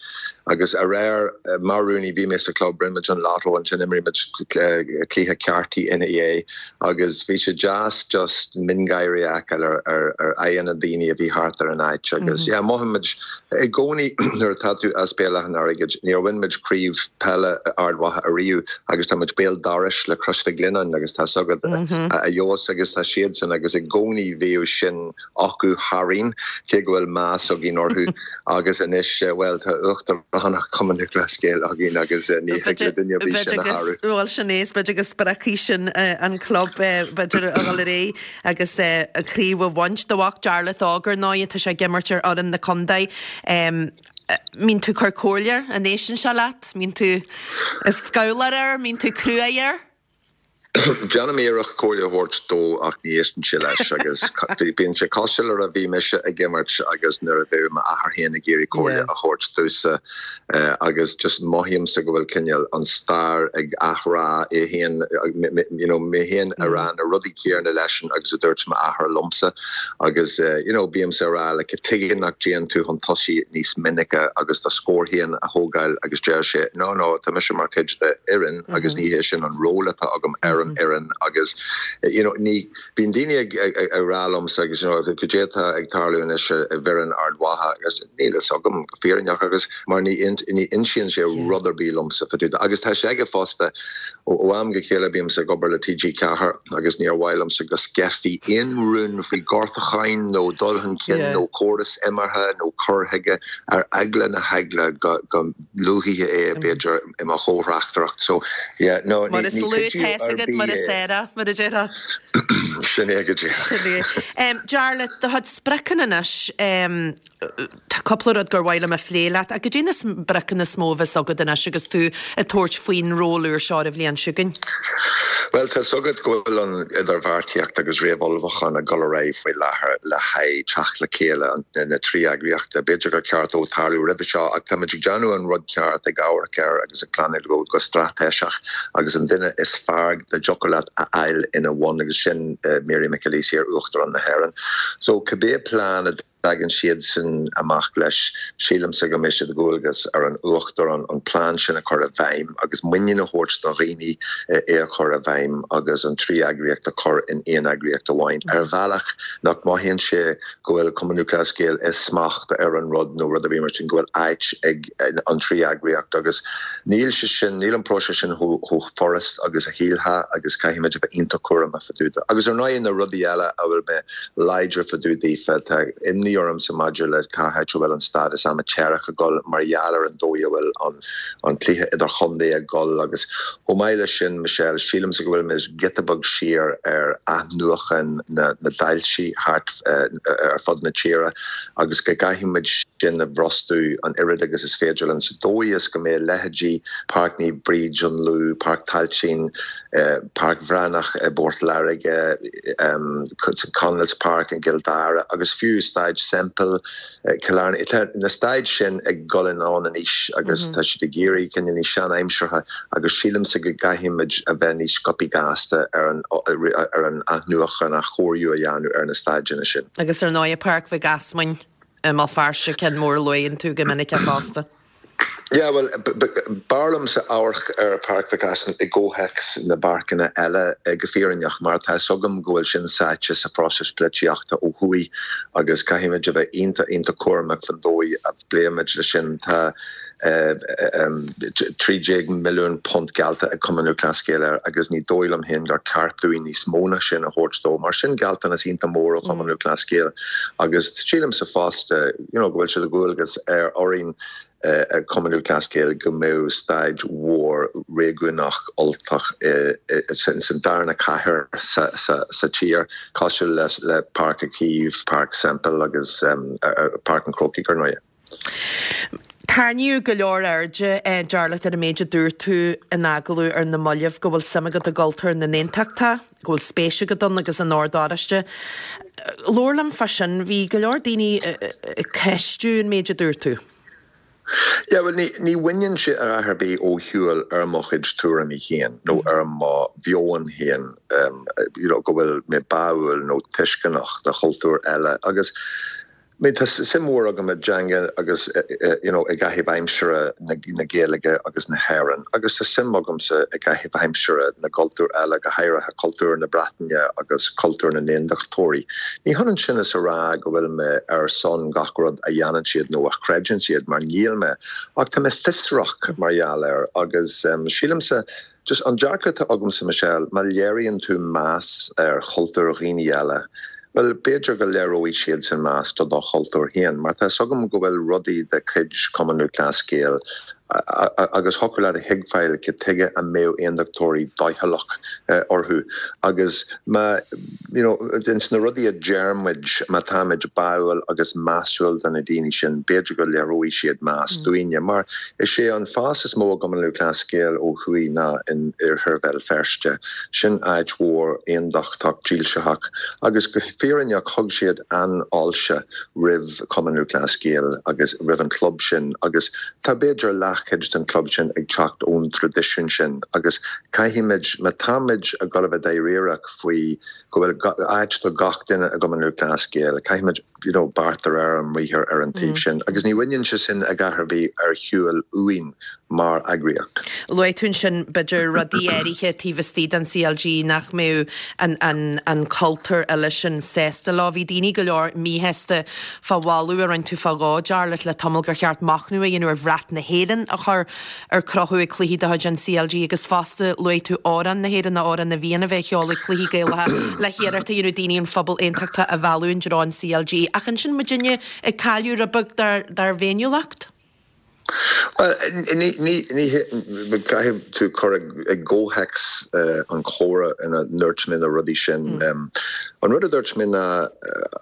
Agus aréir, mar rúnaí, bhí mé sa chlub, rinne muid an lotto, ansin d'imir muid cluiche cártaí ina dhiaidh agus bhí sé deas just miongháirí a fheiceáil ar ar aghaidheanna daoine a bhí thart ar an áit agus yeah, mothaímid i gcónaí nuair atá tú as Béal Átha an Airgid, níor bhain muid craobh peile Ard Mhacha ariamh agus tá muid béal dorais le Crois Mhic Lionnáin agus tá 's agat a fhios agus tá siadsan agus i gcónaí bhíodh sin acu tharainn, cé go bhfuil meas againn orthu, agus anois, bhuel, tá Uachtaránacht Chumann Lúthchleas Gael againn agus ní thig le duine ar bith sin a shárú. Bhuel, sin é, is b'fhéidir go spreagfaidh sin an club, b'fhéidir, a dhul ar aghaidh agus an chraobh a bhaint. Do mhac Jarlath óg, ar ndóigh, tá sé ag imirt ar fhoireann na contae. Mbíonn tú ag cur comhairle air, an éisteann sé leat? Mbíonn tú ag scabhláil air? Mbíonn tú cruaidh air? Déanaim iarracht comhairle a thabhairt dó ach ní éisteann sé leis agus bíonn sé cosúil le nuair a bhí mise ag imirt agus nuair a bheadh m'athair féin ag iarraidh comhairle a thabhairt domhsa agus just mothaímse go bhfuil cineál an stair ag athrá é féin, you know, mé féin ag rá na rudaí céanna leisean agus a dúirt m'athair liomsa agus you know bímse ag rá like tuige nach dtéann tú chun tosaigh níos minice agus do scór féin a thógáil agus deir sé no no tá mise mar chuid de fhoireann agus ní hé sin an ról atá agam ar an fhoireann agus you know ní bíonn daoine ag ag rá liomsa agus you know cad é atá ag tarlú anois i bhfoireann Ard Mhacha agus níl fhios agam go fírinneach agus mar ní ní insíonn sé rud ar bith liomsa fá dtaobh de agus tá sé aige fosta ó am go chéile bímse ag obair le TG4 agus níor mhaith liomsa go sceithfí aon rún faoi ghortúcháin nó dul chun cinn nó córas imeartha nó cur chuige ar eagla na heagla go go luafaí é b'fhéidir i mo chomhthráchtaireacht. So, yeah, no, ní Mar is ní lú cuidiú tá fhios ar agat bith mar is é. aire, mar a déarfá. Sin é go díreach. Sin é. Jarlath, do chuid spriocanna anois, tá cúpla rud gur mhaith liom a phlé leat, ach cad é na spriocanna is mó a bheas agat anois agus tú ag tabhairt faoin ról úr seo ar an bhliain seo chugainn? Bhuel, tá 's agat go bhfuil an idirbheartaíocht agus réamhullmhúchán ag dul ar aghaidh faoi láthair le haghaidh teacht le chéile na dtrí eagraíocht. B'fhéidir gur cheart dó tarlú roimhe seo ach táimid ag déanamh an rud ceart, ag amharc air agus ag pleanáil go go straitéiseach agus an duine is fearr dá dtiocfadh leat a fháil ina bhun agus sin Mary McAleese, iar-Uachtarán na hÉireann. So cibé plean a dtagann siadsan amach leis, sílimse go mbeidh sé de dhualgas ar an Uachtarán an plean sin a chur i bhfeidhm agus muinín a thabhairt do dhaoine é a chur i bhfeidhm agus an trí eagraíocht a chur in aon eagraíocht amháin ar bhealach nach mothaíonn sé go bhfuil Cumann Lúthchleas Gael i smacht ar an rud nó rud ar bith mar sin, go bhfuil áit ag an trí eagraíocht agus níl sé sin, níl an próiseas sin chomh furast agus a shílfeá agus caithfimid a bheith iontach cúramach fá dtaobh de. Agus ar ndóigh na rudaí eile a bhfuil mé láidir fá dtaobh daofa. Tá imní. imní ormsa maidir le cá háit a bhfuil an stádas amaitéarach ag dul mar gheall ar an dóigh a bhfuil an cluiche idirchontae ag dul agus chomh maith leis sin, Michelle, sílimse go bhfuil muid giota beag siar ar athnuachan na dtailte thart ar fud na tíre agus go gcaithfidh muid sin a bhrostú an oiread agus is féidir linn sa dóigh is go mbeidh leithéidí Páirc Naomh Bríd an Lú, Páirc Tailteann, Páirc Bhreathnach i bPort Láirge, Conleys Park i gCill Dara agus fiú Staid Semple, Cill Airne. Tá na staid sin ag dul anonn in aois agus tá siad ag éirí cineál níos sean-aimseartha agus sílimse go gcaithfidh muid a bheith níos sciobthaí gasta ar an ar an athnuachan, athchóiriú a dhéanamh ar na staideanna sin. Agus ar ndóigh Páirc Mhic Easmainn i mBéal Feirste, ceann mór a luann tú go minic fosta. Yeah, bhuel, b'fhearr liomsa amharc ar Páirc Mhic Easmainn i gcomhthéacs na bpáirceanna eile, go fírinneach, mar tá 'fhios agam go bhfuil sin sáite sa phróiseas polaitíochta ó thuaidh agus caithfimid a bheith iontach, iontach cúramach fan dóigh a bpléimid leis sin. Tá £13 milliún geallta ag Cumann Lúthchleas Gael air agus ní dóigh liom féin gur ceart dúinn níos mó ná sin a thabhairt dó. Mar sin gealltanas iontach mór ó Chumann Lúthchleas Gael agus sílimse fosta, you know, go bhfuil sé de dhualgas ar orainn ag Cumann Lúthchleas Gael go mbeadh staid mhór réigiúnach Ultach san darna cathair sa tír, cosúil le Páirc Uí Chaoimh, Páirc Semple agus Páirc an Chrócaigh, ar ndóigh. Tarraingíodh go leor airde, Jarlath, ar an méid a dúirt tú in agallamh ar na mallaibh, go bhfuil suim agat i gcultúr na n-aontachtach, go bhfuil spéis agat ann agus in Ord Oráiste. Labhair liom fá sin. Bhí go leor daoine ag ceistiú an méid a dúirt tú. Yeah, bhuel, ní, ní bhaineann sé a dhath ar bith ó shiúl ar mo chuid tuairimí féin nó ar mo mheon féin, you know, go bhfuil mé báúil nó tuisceanach do chultúir eile agus, I mean tá suim mhór agam i dteanga agus you know i gcaitheamh aimsire na Gaeilge agus na hÉireann agus tá suim agamsa i gcaitheamh aimsire na gcultúr eile, go háirithe cultúr na Breataine agus cultúr na nAondachtóirí. Ní hionann sin is a rá go bhfuil mé ar son gach rud a dhéanann siad nó a chreideann siad, mar níl mé, ach tá mé fiosrach mar gheall air agus sílimse Just an dearcadh atá agamsa, Michelle, má léiríonn tú meas ar chultúr dhaoine eile, bhuel, b'fhéidir go léireoidh siadsan meas do do chultúr féin, mar tá 'fhios agam go bhfuil rudaí de chuid Chumann Lúthchleas Gael agus thiocfadh leat a thuigbheáil cad tuige a mbeadh aondachtóirí doicheallach orthu agus má, you know, ins na rudaí a deir muid, má táimid báúil agus measúil do na daoine sin, b'fhéidir go léireoidh siad meas dúinne, mar Is é an fás is mó i gCumann Lúthchleas Gael ó thuaidh ná in oirthear Bhéal Feirste. Sin áit mhór aondachtach dílseach agus go fírinneach thug siad an-fháilte roimh Chumann Lúthchleas Gael agus roimh an chlub sin agus tá b'fhéidir leathchuid den chlub sin ag teacht ón traidisiún sin agus caithfimid, má táimid ag dul a bheith dáiríreach faoi go bhfuil áit do gach duine i gCumann Lúthchleas Gael, caithfimid. you know, beart de réir a mbriathair ar an taobh sin agus ní bhaineann sé sin a dhath ar bith ar shiúl uainn mar eagraíocht. Luaigh tú ansin, b'fhéidir, rudaí áirithe taobh istigh den CLG nach mbeadh an, an, an cultúr eile sin sásta leo. Bhí daoine go leor míshásta fá mholadh a rinne tú fá dhó, Jarlath, le tamall gur cheart machnamh a dhéanamh ar bhrat na hÉireann a chur ar crochadh ag cluichí de chuid an CLG agus fosta luaigh tú amhrán na hÉireann, Amhrán na bhFiann a bheith á cheol ag cluichí Gaelacha le hiarracht a dhéanamh daoine an phobal aontachtach a mhealladh i dtreo an CLG. Ach ansin muidinne ag cailleadh rud beag dár bhféiniúlacht? Bhuel, ní, ní, ní, caithfidh tú cur i gcomhthéacs an chomhrá ina ndúirt mé na rudaí sin. An rud a dúirt mé ná,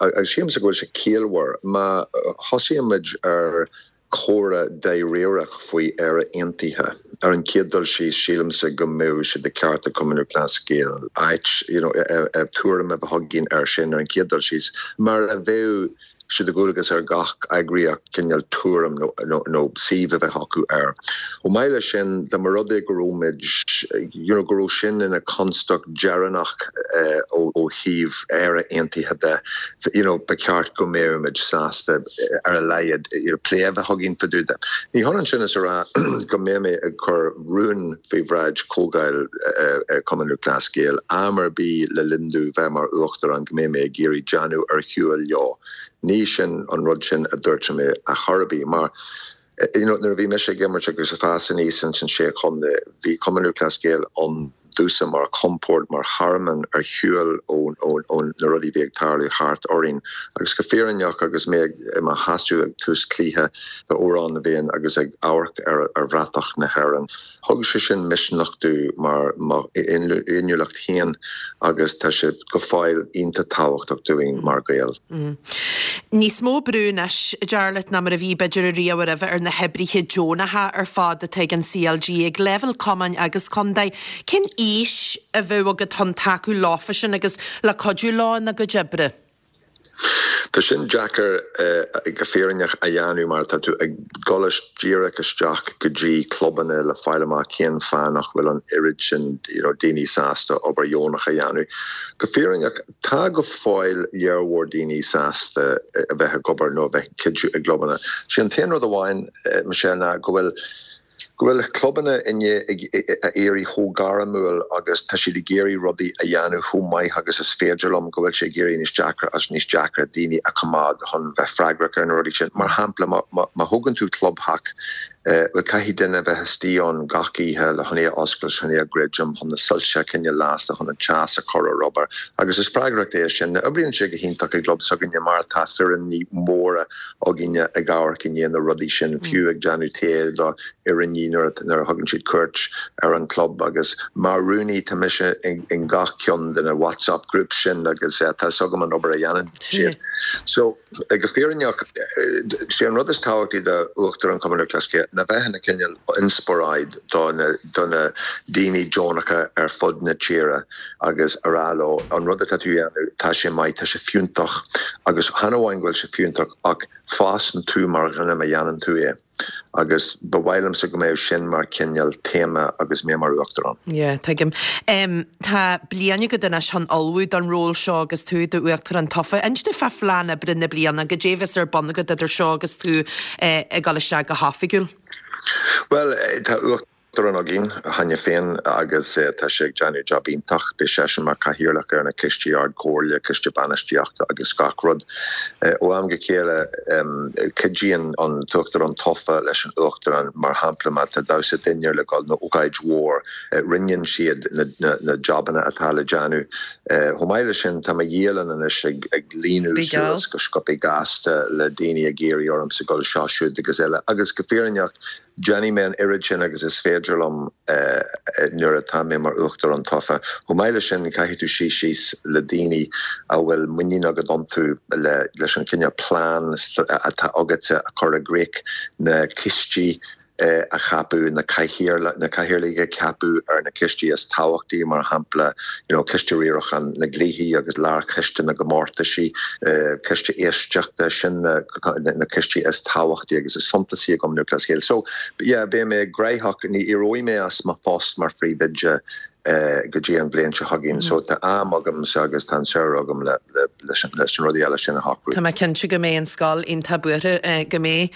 agus sílimse go bhfuil sé ciallmhar, má thosaíonn muid ar comhrá dáiríreach faoi Éire Aontaithe. Ar an chéad dul síos, sílimse go mbeadh sé de cheart ag Cumann Lúthchleas Gael áit, you know, tuairim a bheith againn air sin ar an chéad dul síos, mar a bheadh sé de dhualgas ar gach eagraíocht cineál tuairim nó, nó, nó suíomh a bheith acu air. Chomh maith leis sin, dá mba rud é go raibh muid, you know, go raibh sin ina constaic dheireanach ó thaobh Éire Aontaithe de, you know, ba cheart go mbeadh muid sásta ar a laghad you know, plé a bheith againn fá dtaobh de. Ní hionann sin is a rá go mbeidh mé ag cur rún faoi bhráid Chomhdháil Chumann Lúthchleas Gael am ar bith le linn domh bheith mar Uachtarán go mbeidh mé ag iarraidh déanamh ar shiúl leo. Ní sin an rud sin a dúirt mé a chor ar bith mar you know, nuair a bhí mise ag imirt agus ag fás aníos ins an Sé Chontae, bhí Cumann Lúthchleas Gael ann. domhsa mar chompord, mar thearmann ar shiúl ó na rudaí a bhí ag tarlú thart orainn. Agus go fírinneach, agus mé i mo sheasamh ag tús cluiche d'Amhrán na bhFiann agus ag amharc ar bhratach na hÉireann, Thug sé sin misneach domh mar mo fhéiniúlacht féin agus tá sé go fóill iontach tábhachtach dúinn mar Ghaeil. Níos mó brú anois, Jarlath, ná mar a bhí b'fhéidir ariamh roimhe ar na hoibrithe deonacha ar fad atá ag an CLG, ag leibhéal cumainn agus contae. Cén fhís a bheadh agat chun tacú leofa sin agus le cuidiú leo ina gcuid oibre? Tá sin deacair go fírinneach a dhéanamh mar tá tú ag dul díreach isteach go dtí clubanna le fáil amach cén fáth nach bhfuil an oiread sin daoine sásta obair dheonach a dhéanamh. Go fírinneach, tá go fóill lear mhór daoine sásta a bheith ag obair nó a bheith ag cuidiú i gclubanna. Sé an t-aon rud amháin, Michelle, ná go bhfuil go bhfuil clubanna i ndiaidh a éirí chomh gairmiúil agus tá siad ag iarraidh rudaí a dhéanamh chomh maith agus is féidir leo, go bhfuil sé ag éirí níos deacra agus níos deacra daoine a choimeád chun bheith freagrach ar na rudaí sin. Mar shampla, má thógann tú clubtheach, bhuel, caithfidh duine a bheith istigh ann gach oíche le chun é a oscailt, chun é a dhruidim, chun na soilse a choinneáil lasta, chun an teas a chur ar obair agus is freagracht é sin. Oibríonn sé go hiontach i gclub s'againne mar tá foireann mhóra againne ag amharc i ndiaidh na rudaí sin, fiú ag déanamh tae do fhoirne nuair a thugann siad cuairt ar an club agus mar rúnaí tá mise in gach ceann de na WhatsApp groups sin agus tá fhios agam an obair a dhéanann siad. So, go fírinneach, sé an rud is tábhachtaí do Uachtarán Chumann Lúthchleas Gael ná bheith ina cineál inspioráid do na do na daoine deonacha ar fud na tíre agus a rá leo, an rud atá tú a dhéanamh, tá sé maith, tá sé fiúntach agus chan amháin go bhfuil sé fiúntach ach fásann tú mar dhuine má dhéanann tú é agus ba mhaith liomsa go mbeadh sin mar chineál téama agus mé mar Uachtarán. Yeah, tuigim. Tá bliain agat anois chun ullmhú don ról seo agus tú i d'Uachtarán tofa. Inis domh fá phlean oibre na bliana, goidé a bheas ar bun agat idir seo agus tú ag dul isteach go hoifigiúil? Bhuel, tá Uachtarán. Uachtarán againn cheana féin agus tá sé ag déanamh jab iontach. Beidh seisean mar chathaoirleach ar na coistí Ard-Chomhairle, Coiste Bainistíochta agus gach rud. Ó am go chéile cuidíonn an tUachtarán tofa leis an Uachtarán, mar shampla má tá damhsa dinnéir le dul nó ócáid mhór, roinneann siad na jabanna atá le déanamh. Chomh maith leis sin tá mo dhialann anois ag líonadh suas go sciobtha gasta le daoine ag iarraidh ormsa dul seo, siúd agus eile agus go fírinneach, Déanfaidh mé an oiread sin agus is féidir liom nuair atá mé mar Uachtarán tofa. Chomh maith leis sin, caithfidh tú suí síos le daoine a bhfuil muinín agat iontu leis an chineál plean atá agatsa a chur i gcrích, na coistí a cheapadh, na cathaoirligh a cheapadh ar na coistí is tábhachtaí, mar shampla, you know, coiste riaracháin na gcluichí agus lárchoiste na gcomórtaisí, coiste éisteachta, sin na. na coistí is tábhachtaí agus is suntasaí i gCumann Lúthchleas Gael. So, yeah, beidh mé gnóthach, ní éireoidh mé as mo phost mar phríomhoide go dtí an bhliain seo chugainn. So, tá am agamsa agus tá an samhradh agam le leis na rudaí eile sin a shocrú. Tá mé cinnte go mbeidh an scoil iontach buartha go mbeidh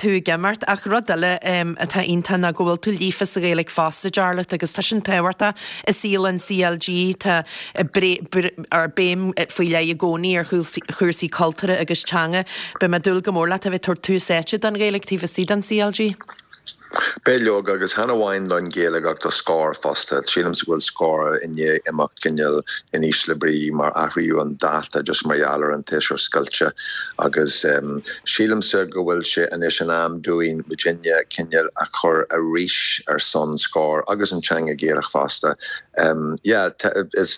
tú ag imeacht. Ach rud eile atá iontach ná go bhfuil tú líofa sa Ghaeilge fosta, Jarlath, agus tá sin tábhachtach i saol an CLG. Tá béim faoi leith i gcónaí ar chúrsaí cultúrtha agus teanga. Beidh mé ag dúil go mór leat a bheith ag tabhairt tús áite don Ghaeilge taobh istigh den CLG. Beidh leoga, agus chan amháin don Ghaeilge ach do Scór fosta. Sílimse go bhfuil Scór i ndiaidh imeacht cineál in ísle brí mar athraíodh an dáta just mar gheall ar an tséasúr scoilte agus sílimse go bhfuil sé anois in am dúinn muidinne cineál a chur arís ar son Scór agus an teanga Ghaelach fosta. Yeah, is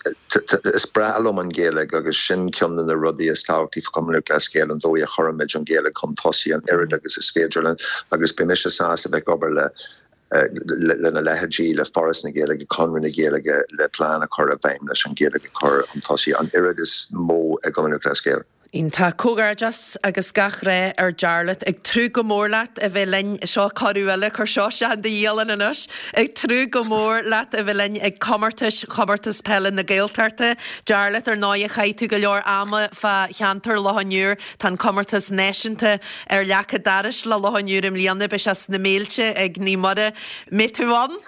breá liom an Ghaeilge agus sin ceann de na rudaí is tábhachtaí faoi Chumann Lúthchleas Gael, an dóigh a chuirimid an Ghaeilge chun tosaigh an oiread agus is féidir linn agus beidh mise sásta bheith ag obair le lena leithéidí, le Foras na Gaeilge, Conradh na Gaeilge le plean a chur i bhfeidhm leis an Ghaeilge a chur chun tosaigh an oiread is mó i gCumann Lúthchleas Gael. Iontach. Comhghairdeas agus gach rath ar Jarlath. Ag tnúth go mór leat a bheith linn, seo cuireadh eile, cuir seo isteach in do dhialann anois, ag tnúth go mór leat a bheith linn ag comórtais Chomórtas Peile na Gaeltachta. Jarlath, ar ndóighe chaith tú go leor ama fá cheantar Loch an Iúir, tá an comórtas náisiúnta ar leac an dorais le Loch an Iúir i mbliana, beidh sé sna Méilte ag Naomh Muire. Mbeidh tú ann?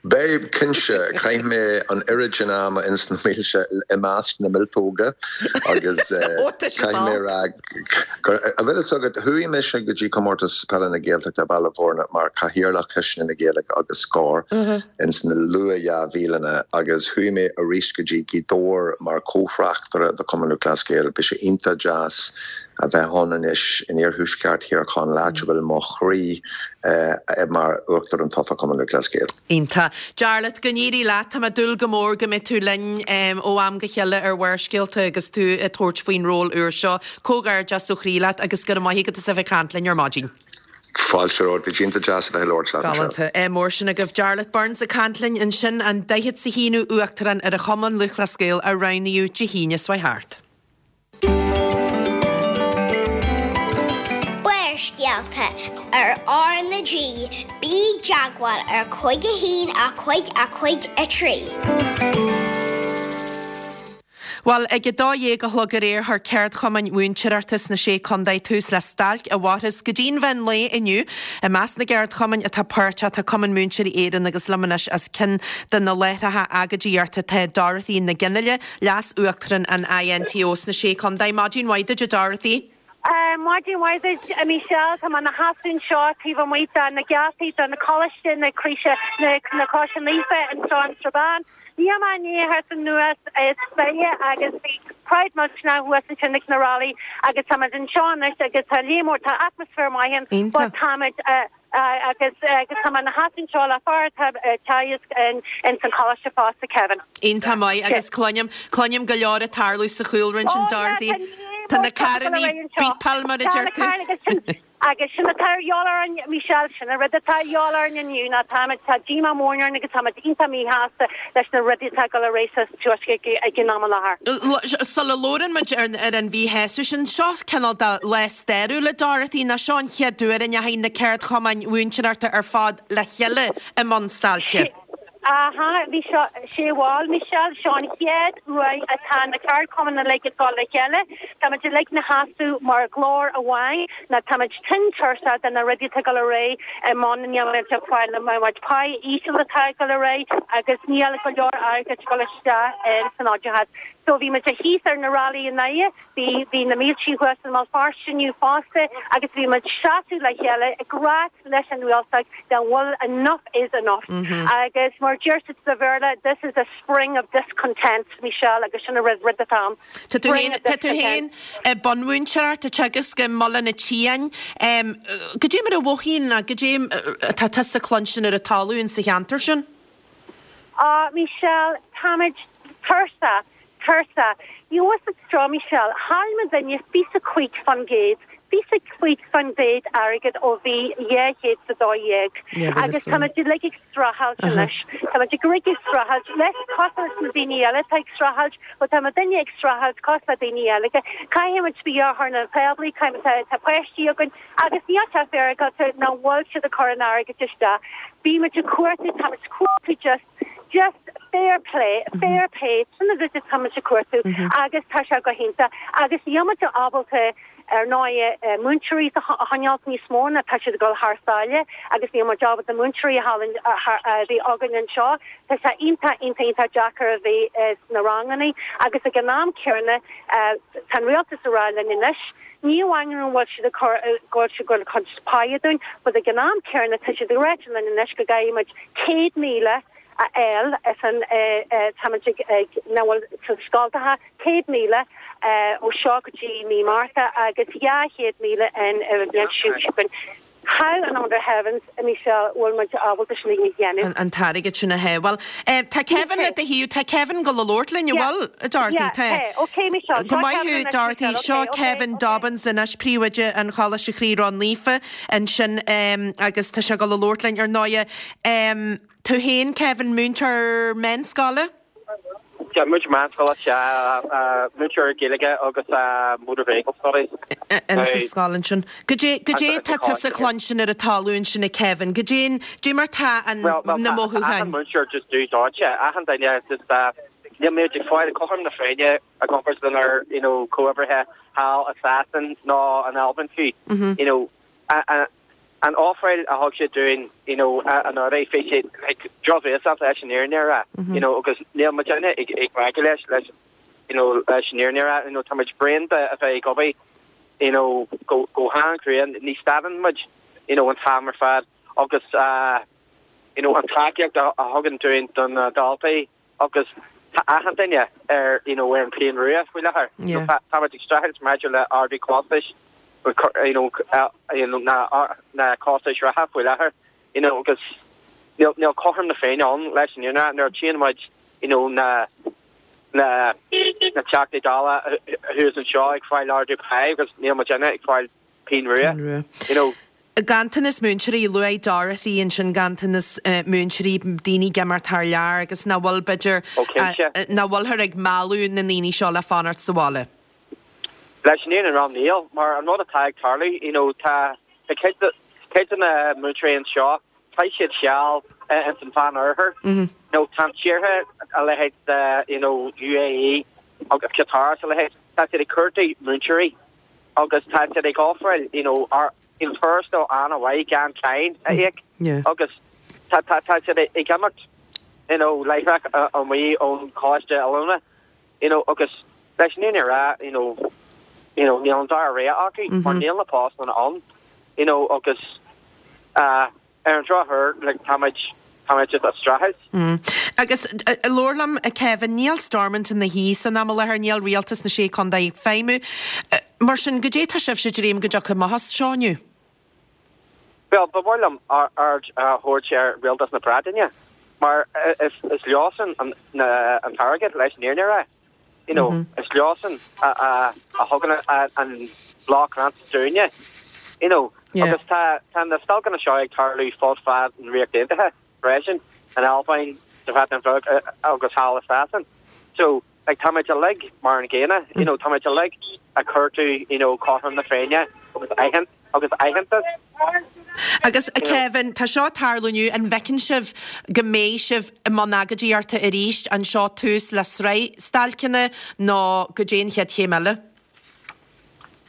Beidh, cinnte. Chaith mé an oiread sin ama ins na mílte, i measc na míoltóga agus caithfidh mé a rá gur, an bhfuil fhios agat, chuaigh mise go dtí Comórtas Peile na Gaeltachta i Baile Bhúirne mar Chathaoirleach Choiste na Gaeilge agus Scor ins na luath 2000anna agus chuaigh mé arís go dtí Gaoth Dobhair mar chomhthráchtaire do Chumann Lúthchleas Gael. Bhí sé iontach deas a bheith ann anois in iarthuaisceart Thír Chonaill, áit a bhfuil mo chroí mar Uachtarán tofa Chumann Lúthchleas Gael. Iontach. Jarlath, go n-éirí leat. Tá mé ag dúil go mór go mbeidh tú linn ó am go chéile ar Bharrscéalta agus tú ag tabhairt faoin ról úr seo. Comhghairdeas ó chroí leat agus go raibh maith agat as a bheith ag caint linn ar maidin. Fáilte romhat. Bhí sé iontach deas a bheith ag labhairt leat, Michelle. Galánta. Ádh mór sin agaibh. Jarlath Burns ag caint linn ansin, an daichead 's a haonú Uachtarán ar an Chumann Lúthchleas Gael a roghnaíodh Dé hAoine seo thart. Barrscéalta ar R na G, bí i dteagmháil ar 5 1 5 5 3. Bhuel, ag a dó dhéag a chlog aréir chuir ceardchumainn mhúinteoireachta sna Sé Contae tús le stailc a mhairfeas go dtí'n mheán lae inniu. I measc na gceardchumainn atá páirteach tá Cumann Múinteoirí Éireann agus liom anois as ceann de na láithreacha agóidíochta tá Dorothy Nic Fhionnghaile, Leas-Uachtarán an INTO sna Sé Contae. Maidin mhaith duit, a Dorothy. Maidin mhaith duit, a Michelle. Tá mé ina sheasamh anseo taobh amuigh de na geataí de na Coláiste na Croise, na Croise Naofa anseo in Strabane. Níl mé i ndiaidh a theacht anuas is fiche agus bhí crowd millteanach thuas ansin ag na rally agus táimid anseo anois agus tá léim mór, tá atmaisféar maith ann but táimid Agus agus tá mé ina sheasamh anseo le fear atá ag teagasc in ins an choláiste fosta, Kevin. Iontach maith agus cluinim, cluinim go leor ag tarlú sa chúlra ansin Oh yeah, Dorothy. tá ní Tá mór na carrannaí carrannaí anseo. beepáil mar a Tá deir na tú. carrannaí agus sin agus sin atá ar dhíobháil orainn, Michelle, sin an rud atá ar dhíobháil orainn inniu ná táimid, tá díomá mór orainn agus táimid iontach míshásta leis na rudaí atá ag dul ar aghaidh sa Tuaisceart ag an am i láthair. Sula labhrann muid ar an mhíshásamh sin, seo cineál de lá stairiúil a Dorothy, nó seo an chéad uair a ndeachaigh na ceardchumainn mhúinteoireachta ar fad le chéile i mbun stailce. Aha, bhí seo, sé bhuel, Michelle, seo an chéad uair atá na ceardchumainn uilig ag dul le chéile. Táimid uilig ina sheasamh mar ghlór amháin, nó táimid tinn tuirseach de na rudaí atá ag dul ar aghaidh i mbun, níl muid ag fáil na méid pá íseal atá ag dul ar aghaidh agus níl go leor airgid ag dul isteach san oideachas. So bhí muid thíos ar na rally i nDoire, Bhí, bhí na míltí thuas i mBéal Feirste inniu fosta agus bhí muid seasamh le chéile ag ráit leis an rialtas go bhfuil enough is enough. Agus mar deir siad sa Bhéarla, this is a spring of discontent, Michelle, agus sin an rud, rud atá ann. Tá tú Spring féin, of tá tú féin discontent. i bunmhúinteoireacht ag teagasc i mBaile an tSiáin. Goidé mar a mhothaíonn, nó goidé atá tusa ag cluinstin ar an talamh insa cheantar sin? Á, Michelle, táimid tuirseach, tuirseach. You know what's seo, Michelle, chaill muidinne fiche cúig fán gcéad, fiche cúig fán gcéad airgead ó bhí 212 agus táimid uilig ag streachailt anois. Táimid uilig ag streachailt, leis, cosúil leis na daoine eile atá ag streachailt, bhuel tá muidinne ag streachailt cosúil le daoine eile. Caithfimid bia a chur ar an tábla, caithfimid, tá páistí againn, Agus níl sé féaráilte nach bhfuil siad ag cur an airgid isteach. Bímid ag cuartú, táimid ag cuartú just, just fair play, fair pay, sin an rud atáimid ag cuartú agus tá sé go hiontach. Agus níl muid ábalta, ar ndóigh, múinteoirí a choinneáilt níos mó ná tá siad ag dul thar sáile agus níl muid ábalta múinteoirí a bheith againn anseo. Tá sé iontach, iontach, iontach deacair a bheith sna ranganna agus ag an am céanna tá an rialtas ag rá linn anois, Ní amháin go bhfuil siad ag cur, go bhfuil siad ag cur páighe dúinn, but ag an am céanna tá siad ag ráit linn anois go gcaithfidh muid 100,000 a fháil as an, táimid ag, ag, nach bhfuil sna scoltacha, 100,000 ó seo go dtí mí Márta agus 200,000 an bhliain seo chugainn. How in under heavens, a Michelle, bhfuil muid ábalta sin a dhéanamh? An t-airgead sin a shábháil. Tá Kevin le do thaobh, tá Kevin ag dul a labhairt linn, an bhfuil, a Dorothy? Yeah, Tá. tá. Ok, Michelle, Go seo maith Kevin thú, anois, Dorothy. Michelle, Seo ok, ok, Kevin ok. Dobbins anois, príomhoide an Choláiste Chroí Ró-Naofa ansin agus tá sé ag dul a labhairt linn ar ndóighe. Tú féin, Kevin, múinteoir meánscoile? Yeah, múinteoir meánscoile, sea, múinteoir Gaeilge agus Motor Vehicle Studies. In sa scoil ansin. Goidé, goidé tá tusa cluinstin ar an talamh ansin a Kevin? Goidé, goidé mar tá an, Well, well, na tá achan mothúcháin? múinteoir just dubh dóite, achan duine just, níl muid ag fáil cothrom na Féinne i gcomparáid lenár, you know, comhoibrithe thall i Sasain nó in Albain fiú, you know, a, a. An ofráil a thug siad dúinn, you know, anuraidh, bhí sé like drochbhéasach leis an fhírinne a rá, you know, agus níl muidinne ag ag glacadh leis, leis, you know, leis an fhírinne a rá, you know, tá muid bréan de a bheith ag obair, you know, go go han-chrua, ní stadann muid, you know, an t-am ar fad agus uh, you know, an tacaíocht a a thugann dúinn do na daltaí agus tá achan duine ar you know ar an bpian rua faoi láthair. You know, tá tá muid ag streachailt maidir le ardú costais you know you know na na costais reatha faoi láthair you know agus níl níl cothrom na Féinne ann leis an fhírinne nuair a tchíonn muid you know na na na Teachtaí Dála thuas anseo ag fáil ardú pá agus níl muidinne ag fáil pingin rua you know. Ganntanas múinteoirí, luaigh Dorothy ansin ganntanas múinteoirí, daoine ag imeacht thar lear agus nach bhfuil, b'fhéidir, nach bhfuilthear ag mealladh na ndaoine seo le fanacht sa bhaile. Leis an fhírinne a rá níl, mar an rud atá ag tarlú, you know, tá cuid de, cuid de na múinteoirí anseo, chaith siad seal ins an Mheán Oirthear, you know, tá tíortha a leithéid de, you know, UAE agus Qatar is a leithéid, tá siad ag cuartú múinteoirí agus tá siad ag ofráil, you know, an tuarastal an-mhaith gan cáin a íoc agus tá tá siad ag imeacht you know láithreach amuigh ón choláiste oiliúna you know agus leis an fhírinne a rá you know you know níl an dara rogha acu mar níl na postanna ann you know agus uh, Ar an drochuair, like, táimid, táimid just ag streachailt. Agus labhair liom, a Kevin, níl Stormont ina shuí san am i láthair, níl rialtas na Sé Chontae ag feidhmiú. Mar sin, goidé tá sibhse ag dréim go dtiocfaidh amach as seo inniu? Bhuel, ba mhaith liom aird a thabhairt ar Rialtas na Breataine, mar is, is leosan an, na, an t-airgead, leis an fhírinne a rá. You know, is leosan a thugann an block grant dúinne. You know, agus tá tá na stailceanna seo ag tarlú fud fad an Ríocht Aontaithe freisin, in Albain, sa Bhreatain Bheag agus thall i Sasain. So, like, táimid uilig mar an gcéanna, you know, táimid uilig ag cuartú, you know, cothrom na Féinne agus aithint agus aitheantas. Agus, a Kevin, tá seo ag tarlú inniu, an bhfeiceann sibh go mbeidh sibh i mbun agóidíochta arís? An seo tús le sraith stailceanna nó goidé an chéad chéim eile?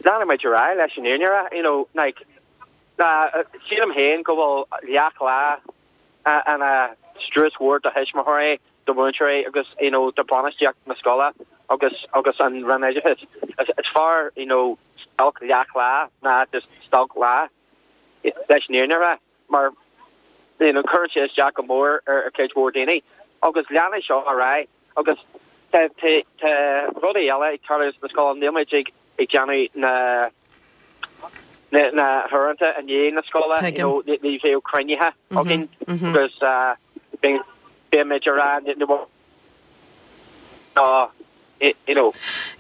Leanfaidh muid ar aghaidh leis an fhírinne a rá, you know, like, sílim féin go bhfuil leath-lá ina strus mhór do thuismitheoirí, do mhúinteoirí agus, you know, do bhainistíocht na scoile agus agus an Roinn Oideachais. Is fearr, you know, stailc leath-lá ná just stailc lá, leis an fhírinne a rá, mar, you know, cuireann sé isteach go mór ar chuid mhór daoine. Agus leanfaidh seo ar aghaidh agus tá tá tá rudaí eile ag tarlú sna scoil, níl muid ag ag déanamh na na na huaireanta i ndiaidh na scoile, you know, ní bheadh cruinnithe againn agus beimid ag rá ná you know,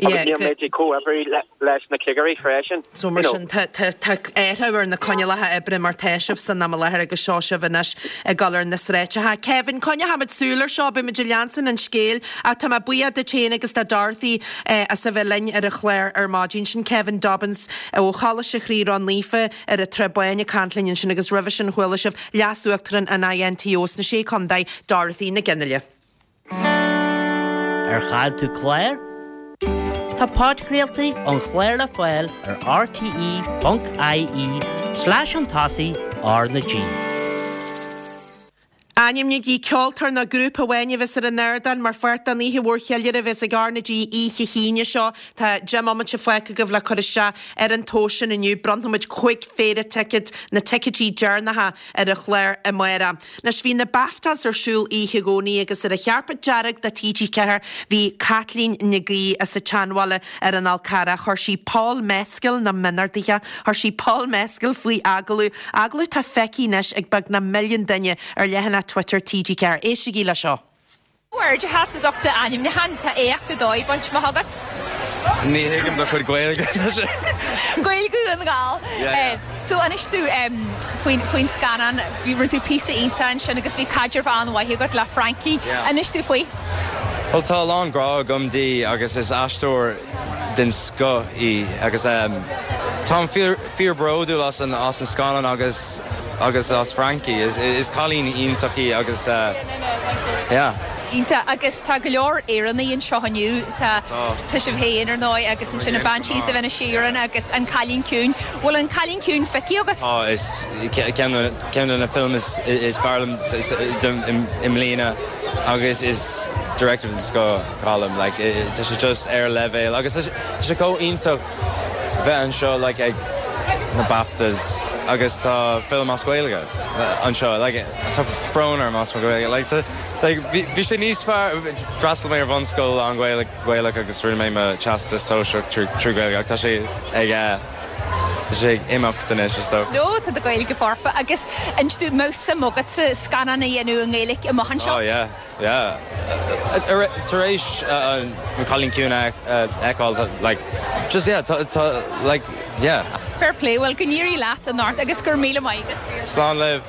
agus níl muid ag comhoibriú leis na cigirí freisin. So mar sin, tá athrú ar na coinníollacha oibre mar tá sibh san am i láthair agus seo sibh anois ag dul ar na sráideacha. Kevin, coinneochaimid súil ar seo, beimid ag leanstan an scéil ach tá mé buíoch duit féin agus do Dorothy as a bheith linn ar an chlár ar maidin. Sin Kevin Dobbins ó Choláiste Chroí Ró-Naofa ar an Trá Báin ag caint linn ansin agus roimhe sin chuala sibh Leas-Uachtarán an INTO sna Sé Chontae, Dorothy Nic Fhionnghaile. Ar chaill tú clár? Tá podchraoltaí an chláir le fáil ar rte.ie slash chun tosaigh R na G. Ainmnígí ceoltóir nó grúpa amháin a bheas ar an ardán mar pháirt den oíche mhór cheiliúrtha a bheas ag R na G oíche hAoine seo. Tá 10 mbomaite fágtha agaibh le cur isteach ar an tomhas sin inniu. Bronnfaimid 5 phéire ticéad, na ticéidí deireanacha, ar an chlár amárach. Anois, bhí na BAFTAs ar siúl oíche Dhomhnaigh agus ar an chairpéad dearg do TG4 bhí Caitlín Nic Aoidh as an tSeanbhaile ar an Fhál Carrach. Chuir sí Paul Mescal, na mionorduithe, chuir sí Paul Mescal faoi agallamh, agallamh atá feicthe anois ag beagnach milliún duine ar leathanach Twitter TG4. Éistigí le seo. Comhghairdeachas as ucht d'ainmniúchán, tá éacht ar dóigh bainte amach agat. Ní thuigim do chuid Gaeilge. Gaeilge Dhún na nGall. So inis dom faoin faoin scannán, bhí rinne tú píosa iontach ansin agus bhí caidreamh an-mhaith agat le Frankie. Inis dom faoi. Bhuel tá a lán grá agam di agus is aisteoir den scoth í agus táim fíor bródúil as an as an scannán agus agus as Frankie. Is cailín iontach í agus yeah. Iontach. Agus tá go leor Éireannaigh anseo inniu. Tá tá sibh féin, ar ndóigh, agus ansin na Banshees of Inisherin agus An Cailín Ciúin. Bhfuil An Cailín Ciúin feicthe agat? Tá, is ceann de na films is fearr liom i mbliana agus is director den scoth Colm. Like, tá sé just ar leibhéal agus tá sé chomh iontach bheith anseo like ag na BAFTAs agus tá film as Gaeilge anseo. Like, tá brón orm as mo Ghaeilge. Like, tá, like, bhí, bhí sé níos fearr, d'fhreastail mé ar bhunscoil lán-Ghaeilge Gaelach agus rinne mé mo teastas sóisearach trí Ghaeilge ach tá sé ag eh, tá sé ag imeacht anois is dócha. No, tá do Ghaeilge foirfe agus inis domh, an mbeadh suim agatsa scannán a dhéanamh i nGaeilge amach anseo? Oh yeah, yeah. Tar éis An Cailín Ciúin a fheiceáil, like, just yeah, tá, tá, like, yeah. Fair play, bhuel go n-éirí leat anocht agus go raibh míle maith agat. Slán libh.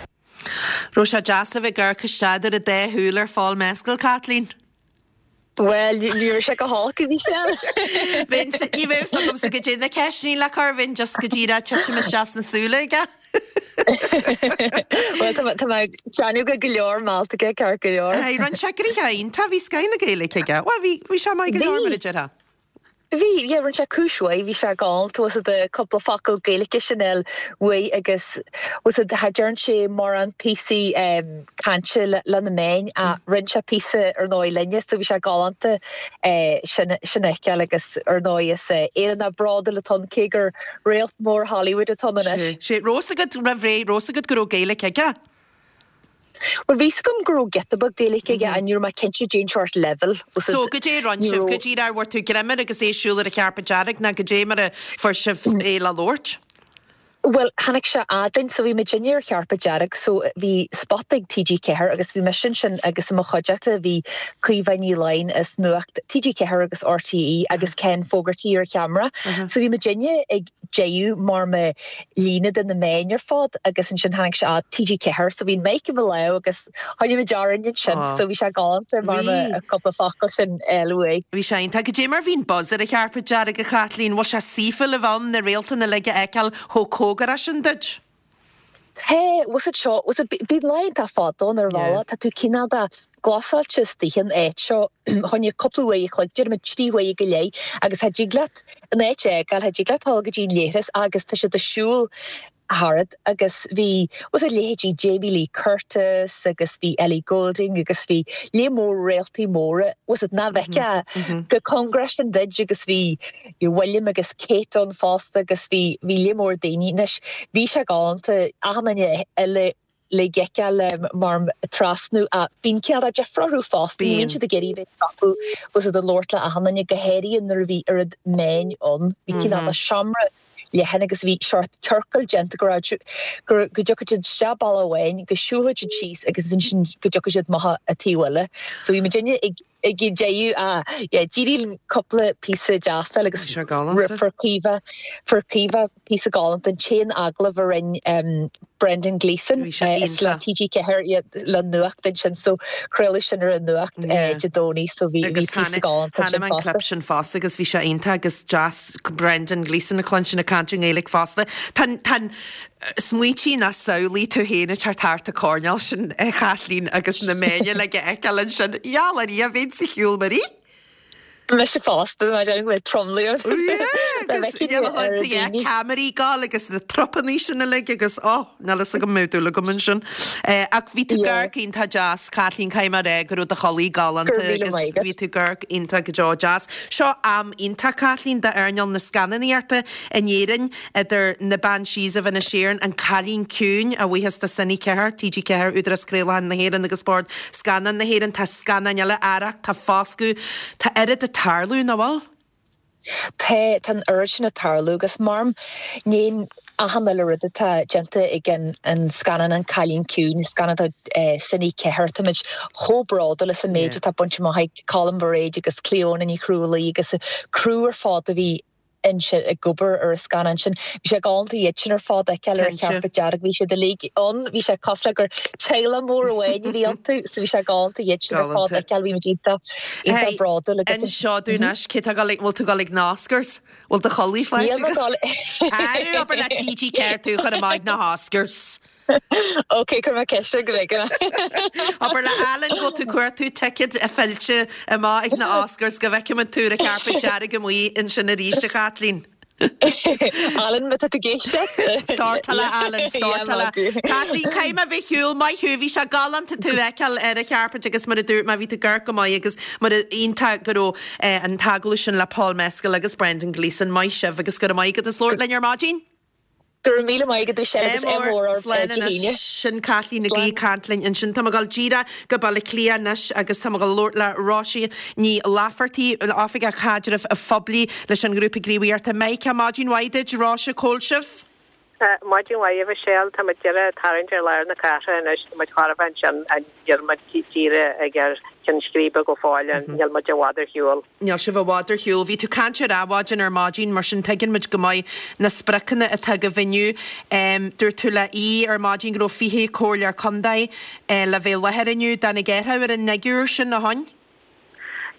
Raibh sé deas a bheith ag amharc isteach idir an dá shúil ar Phól Mescal, Caitlín? Bhuel, ní raibh sé go holc, a Mhichelle. Bheinn, ní bheadh fhios agamsa goidé na ceisteanna le cur, bheinn just go díreach ag titim isteach sna súile aige. Bhuel, tá mé, tá mé ag déanamh go go leor meallta aige, ceart go leor. Aye, rinne sé gnoithe iontach, bhí scoth na Gaeilge aige. Bhuel, bhí, bhí sé maith go leor mar a déarfá. Bhí, yeah, rinne sé cúis mhaith, bhí sé galánta, bhfuil 's a'd cúpla focal Gaeilge sin a fháil uaidh agus bhfuil 's a'd cha dtearn sé mórán píosaí cainte le na meáin ach rinne sé píosa ar ndóigh linne so bhí sé galánta sin sin a fheiceáil agus ar ndóigh is Éireannach bródúil atá ann cé gur réalt mór Hollywood atá ann anois. Sé, raibh 's agat roimh ré, raibh 's agat go raibh Gaeilge aige? Bhuel, bhí 's agam go raibh giota beag Gaeilge aige ach ní raibh mé cinnte cén seort leibhéal. So, goidé a rinne sibh? Go díreach ar bhfuair tú greim air agus é ag siúl ar an charpet dearg nó goidé mar a fuair sibh é le labhairt? Bhuel, tháinig sé fhad linn, so bhí muidinne ar charpet dearg, so bhí spota ag TG4 agus bhí mise ansin agus i mo chuideachta bhí Caoimhe Ní Laighin as Nuacht TG4 agus RTÉ agus Ken Fogarty ar cheamara. So bhí muidinne ag déanamh mar mo líne de na meáin ar fad agus ansin tháinig sé fhad TG4 so bhí an mic i mo lámh agus choinnigh muid orainn ansin so bhí sé galánta mar mo cúpla focal sin a fháil uaidh. Bhí sé iontach. Goidé mar bhí an buzz ar an charpet dearg a Chaitlín? Bhfuil sé saofa le bheith ann na réalta uilig a fheiceáil chomh cóngarach sin duit? Tá, bhfuil 's a'd seo, bhfuil 's a'd, bíonn lá iontach fada ann ar bhealach, tá tú cineál de glasáilte istigh in áit seo, fá choinne cúpla uair a chloig, déarfaidh muid 3 huaire go leith, agus cha dtig leat an áit a fhágáil, cha dtig leat dul go dtí an leithreas agus tá siad ag siúl tharat agus bhí, bhfuil 's a'd, leithéidí Jamie Lee Curtis agus bhí Ellie Goulding agus bhí lear mór réaltaí móra, bhfuil 's a'd, nach bhfeicfeá chomh cóngarach sin duit agus bhí William agus Kate ann fosta agus bhí bhí lear mór daoine. Anois bhí sé galánta achan duine uilig a fheiceáil mar trasnú ach bíonn cineál de deifir orthu fosta, ní bhíonn siad ag iarraidh bheith ag stopadh bhfuil 's a'd ag labhairt le achan duine, go háirithe nuair a bhí oiread meáin ann. Bhí cineál de seomra leathan agus bhí seort ciorcal déanta go raibh go go dtiocfadh siad isteach bealach amháin, go siúlfadh siad síos agus ansin go dtiocfadh siad amach an taobh eile. So bhí muidinne ag ag déanamh ah yeah d'éirigh linn cúpla píosa deas a fháil agus Bhí sé galánta. fuair Caoimhe fuair Caoimhe píosa galánta an t-aon agallamh a rinne um, Brendan Gleeson Bhí sé is le iontach. TG4 yeah, le nuacht ansin so craoladh sin ar an nuacht Yeah. eh, Dé Domhnaigh so bhí bhí Agus píosa tháinig galánta tháinig ansin an fosta. clip sin fosta agus bhí sé iontach agus deas Brendan Gleeson a chluinstin ag caint i nGaeilge fosta. Tá tá an Smaointigh ná samhlaigh tú féin ag teacht thart an coirnéal sin, a Chaitlín, agus na meáin uilig a fheiceáil ansin. Gheall ar Dhia, bheinn sa chiúl mar í. Mise fosta, mar déarfainn go mbeadh tromluí orm. Yeah, agus yeah, ceamaraí ag gabháil agus na trupannaí sin uilig agus oh, níl fhios agam an mbeadh dúil agam ansin. Ach bhí tú ag amharc iontach deas, Caitlín, caithfidh mé a rá go raibh do chulaith galánta agus bhí tú ag amharc iontach go deo deas. Seo am iontach, Caitlín, d'earnáil na scannánaíochta in Éirinn. Idir na Banshees of Inisherin, An Cailín Ciúin, a bhuíochas do Cine 4, TG4, Údarás Craolacháin na hÉireann agus Bord Scannán na hÉireann, tá scannáin eile, Arracht, tá Foscadh, tá oiread ag tarlú, nach bhfuil? Tá, tá an oiread sin ag tarlú agus mar ní achan uile rud atá déanta ag an an scannán An Cailín Ciúin, scannán do Cine 4, táimid chomh bródúil as an méid atá bainte amach ag Colm Bairéad agus Clíona Ní Chrualaoi agus an criú ar fad a bhí ansin ag obair ar an scannán sin. Bhí sé galánta iad sin ar fad a fheiceáil ar an charpet dearg, bhí siad uilig ann, bhí sé cosúil le gur teaghlach mór amháin a bhí iontu, so bhí sé galánta iad sin ar fad a fheiceáil, bhí muid iontach, iontach bródúil agus. Inis dúinn anois, cé tá ag dul ag, bhfuil tú ag dul ag na Oscars? Bhfuil do chulaith faighte Níl mé ag agat? dul. Arú, abair le TG4 tú a chur amach ag na hOscars. Ok, cuirfidh mé ceist air go bhfeicfidh mé. Abair le Alan go bhfuil tú ag cuartú ticéad fillte amach ag na Oscars go bhfeicfimid tú ar an carpet dearg amuigh ansin arís, a Chaitlín. Alan, má tá tú ag éisteacht. Sórtáil é Alan, sórtáil é. Caitlín, caithfidh mé bheith ar shiúl, maith thú, bhí sé galánta tú a fheiceáil ar an charpet agus mar a dúirt mé, bhí tú ag amharc go maith agus mar a iontach go raibh an t-agallamh sin le Paul Mescal agus Brendan Gleeson. Maith sibh agus go raibh maith agat as labhairt linn ar maidin. Go raibh míle maith agat a Mhichelle agus ádh mór oraibh Slán Dé anois. hAoine. Sin Caitlín Nic Aoidh ag caint linn ansin. Tá mé ag dul díreach go Baile Átha Cliath anois agus tá mé ag dul labhairt le Róise Ní Laifeartaigh, Oifigeach Caidrimh Phoiblí leis an ngrúpa gníomhaíochta Mica. Maidin mhaith duit, Róise, cá bhfuil sibh? Maidin mhaith a Mhichelle. Tá muid díreach ag tarraingt ar lár na cathrach anois. Tá muid chóir a bheith ansin níl muid díreach ag ar cheann scríbe go fóill. Níl muid i bhfad ar shiúl. Níl sibh i bhfad ar shiúl. Bhí tú ag caint ar Adhmhaidin ar maidin, mar sin tuigeann muid go maith na spriocanna atá agaibh inniu. Dúirt tú le hAodh ar maidin go raibh 20 comhairleoir contae le bheith i láthair inniu. Dtáinig athrú ar an fhigiúr sin, a thóin?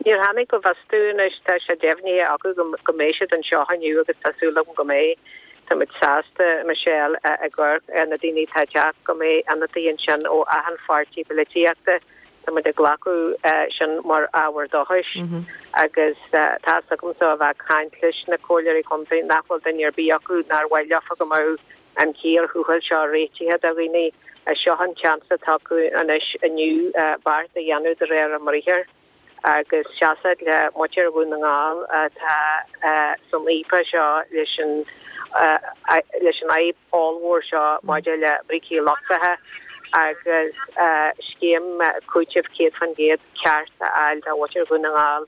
Níor tháinig go bhfios dúinn anois. Tá sé deimhnithe acu go mbeidh siad anseo inniu agus tá súil agam go mbeidh. Tá muid sásta, Michelle, ag amharc ar na daoine atá ag teacht, go mbeidh ionadaí ansin ó achan pháirtí polaitíochta. Tá muid ag glacadh sin mar ábhar dóchais agus tá's agamsa ó bheith ag caint leis na comhairleoirí contae nach bhfuil duine ar bith acu nár mhaith leofa go mbeadh an chíor thuathail seo réitithe do dhaoine. Seo an seans atá acu anois inniu beart a dhéanamh de réir a mbriathair agus seasamh le muintir Dhún na nGall atá san fhaopach seo leis an leis an fhadhb ollmhór seo maidir le brící lochtacha agus scéim cúitimh 100% ceart a fháil do mhuintir Dhún na nGall.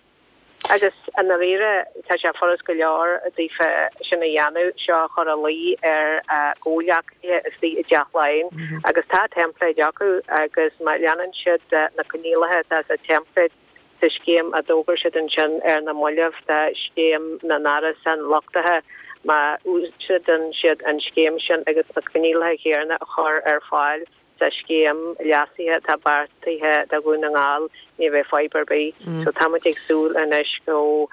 Agus i ndáiríre, tá sé furast go leor daofa sin a dhéanamh, seo a chur ina luí ar a gcomhghleacaithe istigh i dTeach Laighean agus tá teimpléid acu agus má leanann siad na coinníollacha atá sa teimpléad, sa scéim a d'fhógair siad ansin ar na mallaibh do scéim na n-árasán luchtaithe, má úsáideann siad an scéim sin agus na coinníollacha céanna a chur ar fáil sa scéim leasaithe atá beartaithe do Dhún na nGall, ní bheidh fadhb ar bith. So tá muid ag súil anois go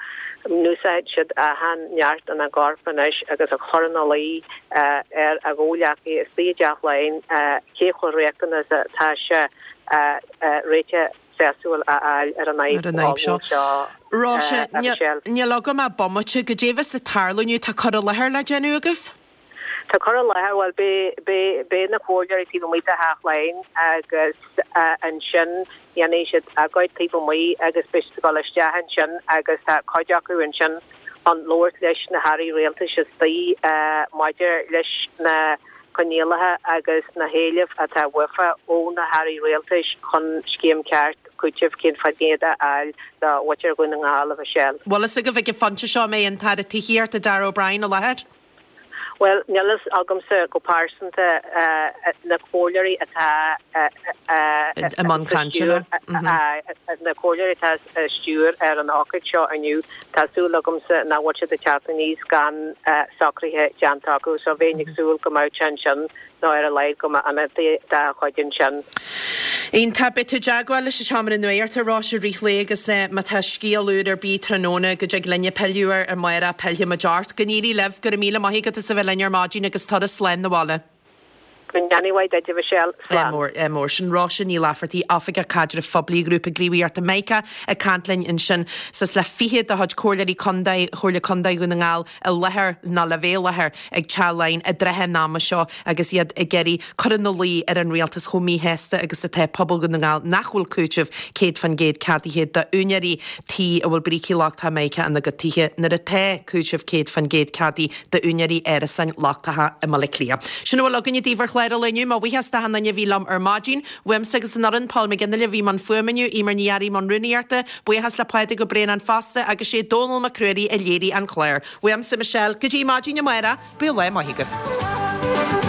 n-úsáidfidh siad achan neart ina gcorp anois agus a chur ina luí ar a gcomhghleacaithe istigh i dTeach Laighean cé chomh riachtanach is atá sé réiteach sásúil a fháil ar an Ar an fhadhb seo. seo, Róise, a Mhichelle. níl agam ach bomaite. Goidé bheas ag tarlú inniu? Tá cur i láthair le déanamh agaibh? Tá cur i láthair, bhuel, beidh, beidh na comhairleoirí taobh amuigh de Theach Laighean agus ansin dhéanfaidh siad agóid taobh amuigh agus beidh siad ag dul isteach ansin agus tá cuid acu ansin chun labhairt leis na hairí rialtais istigh maidir leis na coinníollacha agus na héilimh atá uafa ó na hairí rialtais chun scéim ceart cúitimh 100% a fháil do mhuintir Dhún na nGall, a Mhichelle. Bhfuil fhios agaibh ag an phointe seo an mbeidh an tAire Tithíochta Darragh O'Brien i láthair? Bhuel, níl fhios agamsa go pearsanta. Na comhairleoirí atá i mbun cainte leo. Na comhairleoirí atá ag stiúir ar an ócáid seo inniu, tá súil agamsa nach bhfuil siad ag teacht aníos gan socruithe déanta acu so bheinn ag súil go mbeadh sé ansin nó ar a laghad go mbeadh ionadaí dá chuid ansin. Iontach. Beidh tú i dteagmháil leis an Seomra Nuachta a Róise i rith an lae agus má tá scéal úr ar bith tráthnóna go dtig linne pilleadh air amárach pillfidh muid ort. Go n-éirí libh. Go raibh míle maith agat as a bheith linn ar maidin agus turas slán 'na bhaile. Go ndéana mhaith duit, a Mhichelle. Ádh mór, ádh mór. Sin Róise Ní Laifeartaigh, Oifigeach Caidrimh Phoiblí Ghrúpa Gníomhaíochta Mica ag caint linn ansin. Suas le 20 de chuid Comhairleoirí Contae Chomhairle Contae Dhún na nGall i láthair nó le bheith i láthair ag Teach Laighean i dtrátha an ama seo agus iad ag iarraidh cur ina luí ar an rialtas chomh míshásta agus atá pobal Dhún na nGall nach bhfuil cúiteamh 100% ceadaithe d'úinéirí tí a bhfuil brící lochtacha Mica ina gcuid tithe nuair atá cúiteamh 100% ceadaithe d'úinéirí árasáin lochtacha i mBaile Átha Cliath. Sin a bhfuil againne daoibh ar chlár an lae inniu. Mo bhuíochas d'achan duine a bhí liom ar maidin. Uaimse agus an fhoireann, Paul McGinley a bhí i mbun fuaime inniu, Eimear Ní Fhearraigh i mbun rúnaíochta, buíochas le Pádraig Ó Braonáin fosta agus sé Dónal Mac Ruairí a léirigh an clár. Uaimse, Michelle, go dtí maidin amárach, bíodh lá maith agaibh.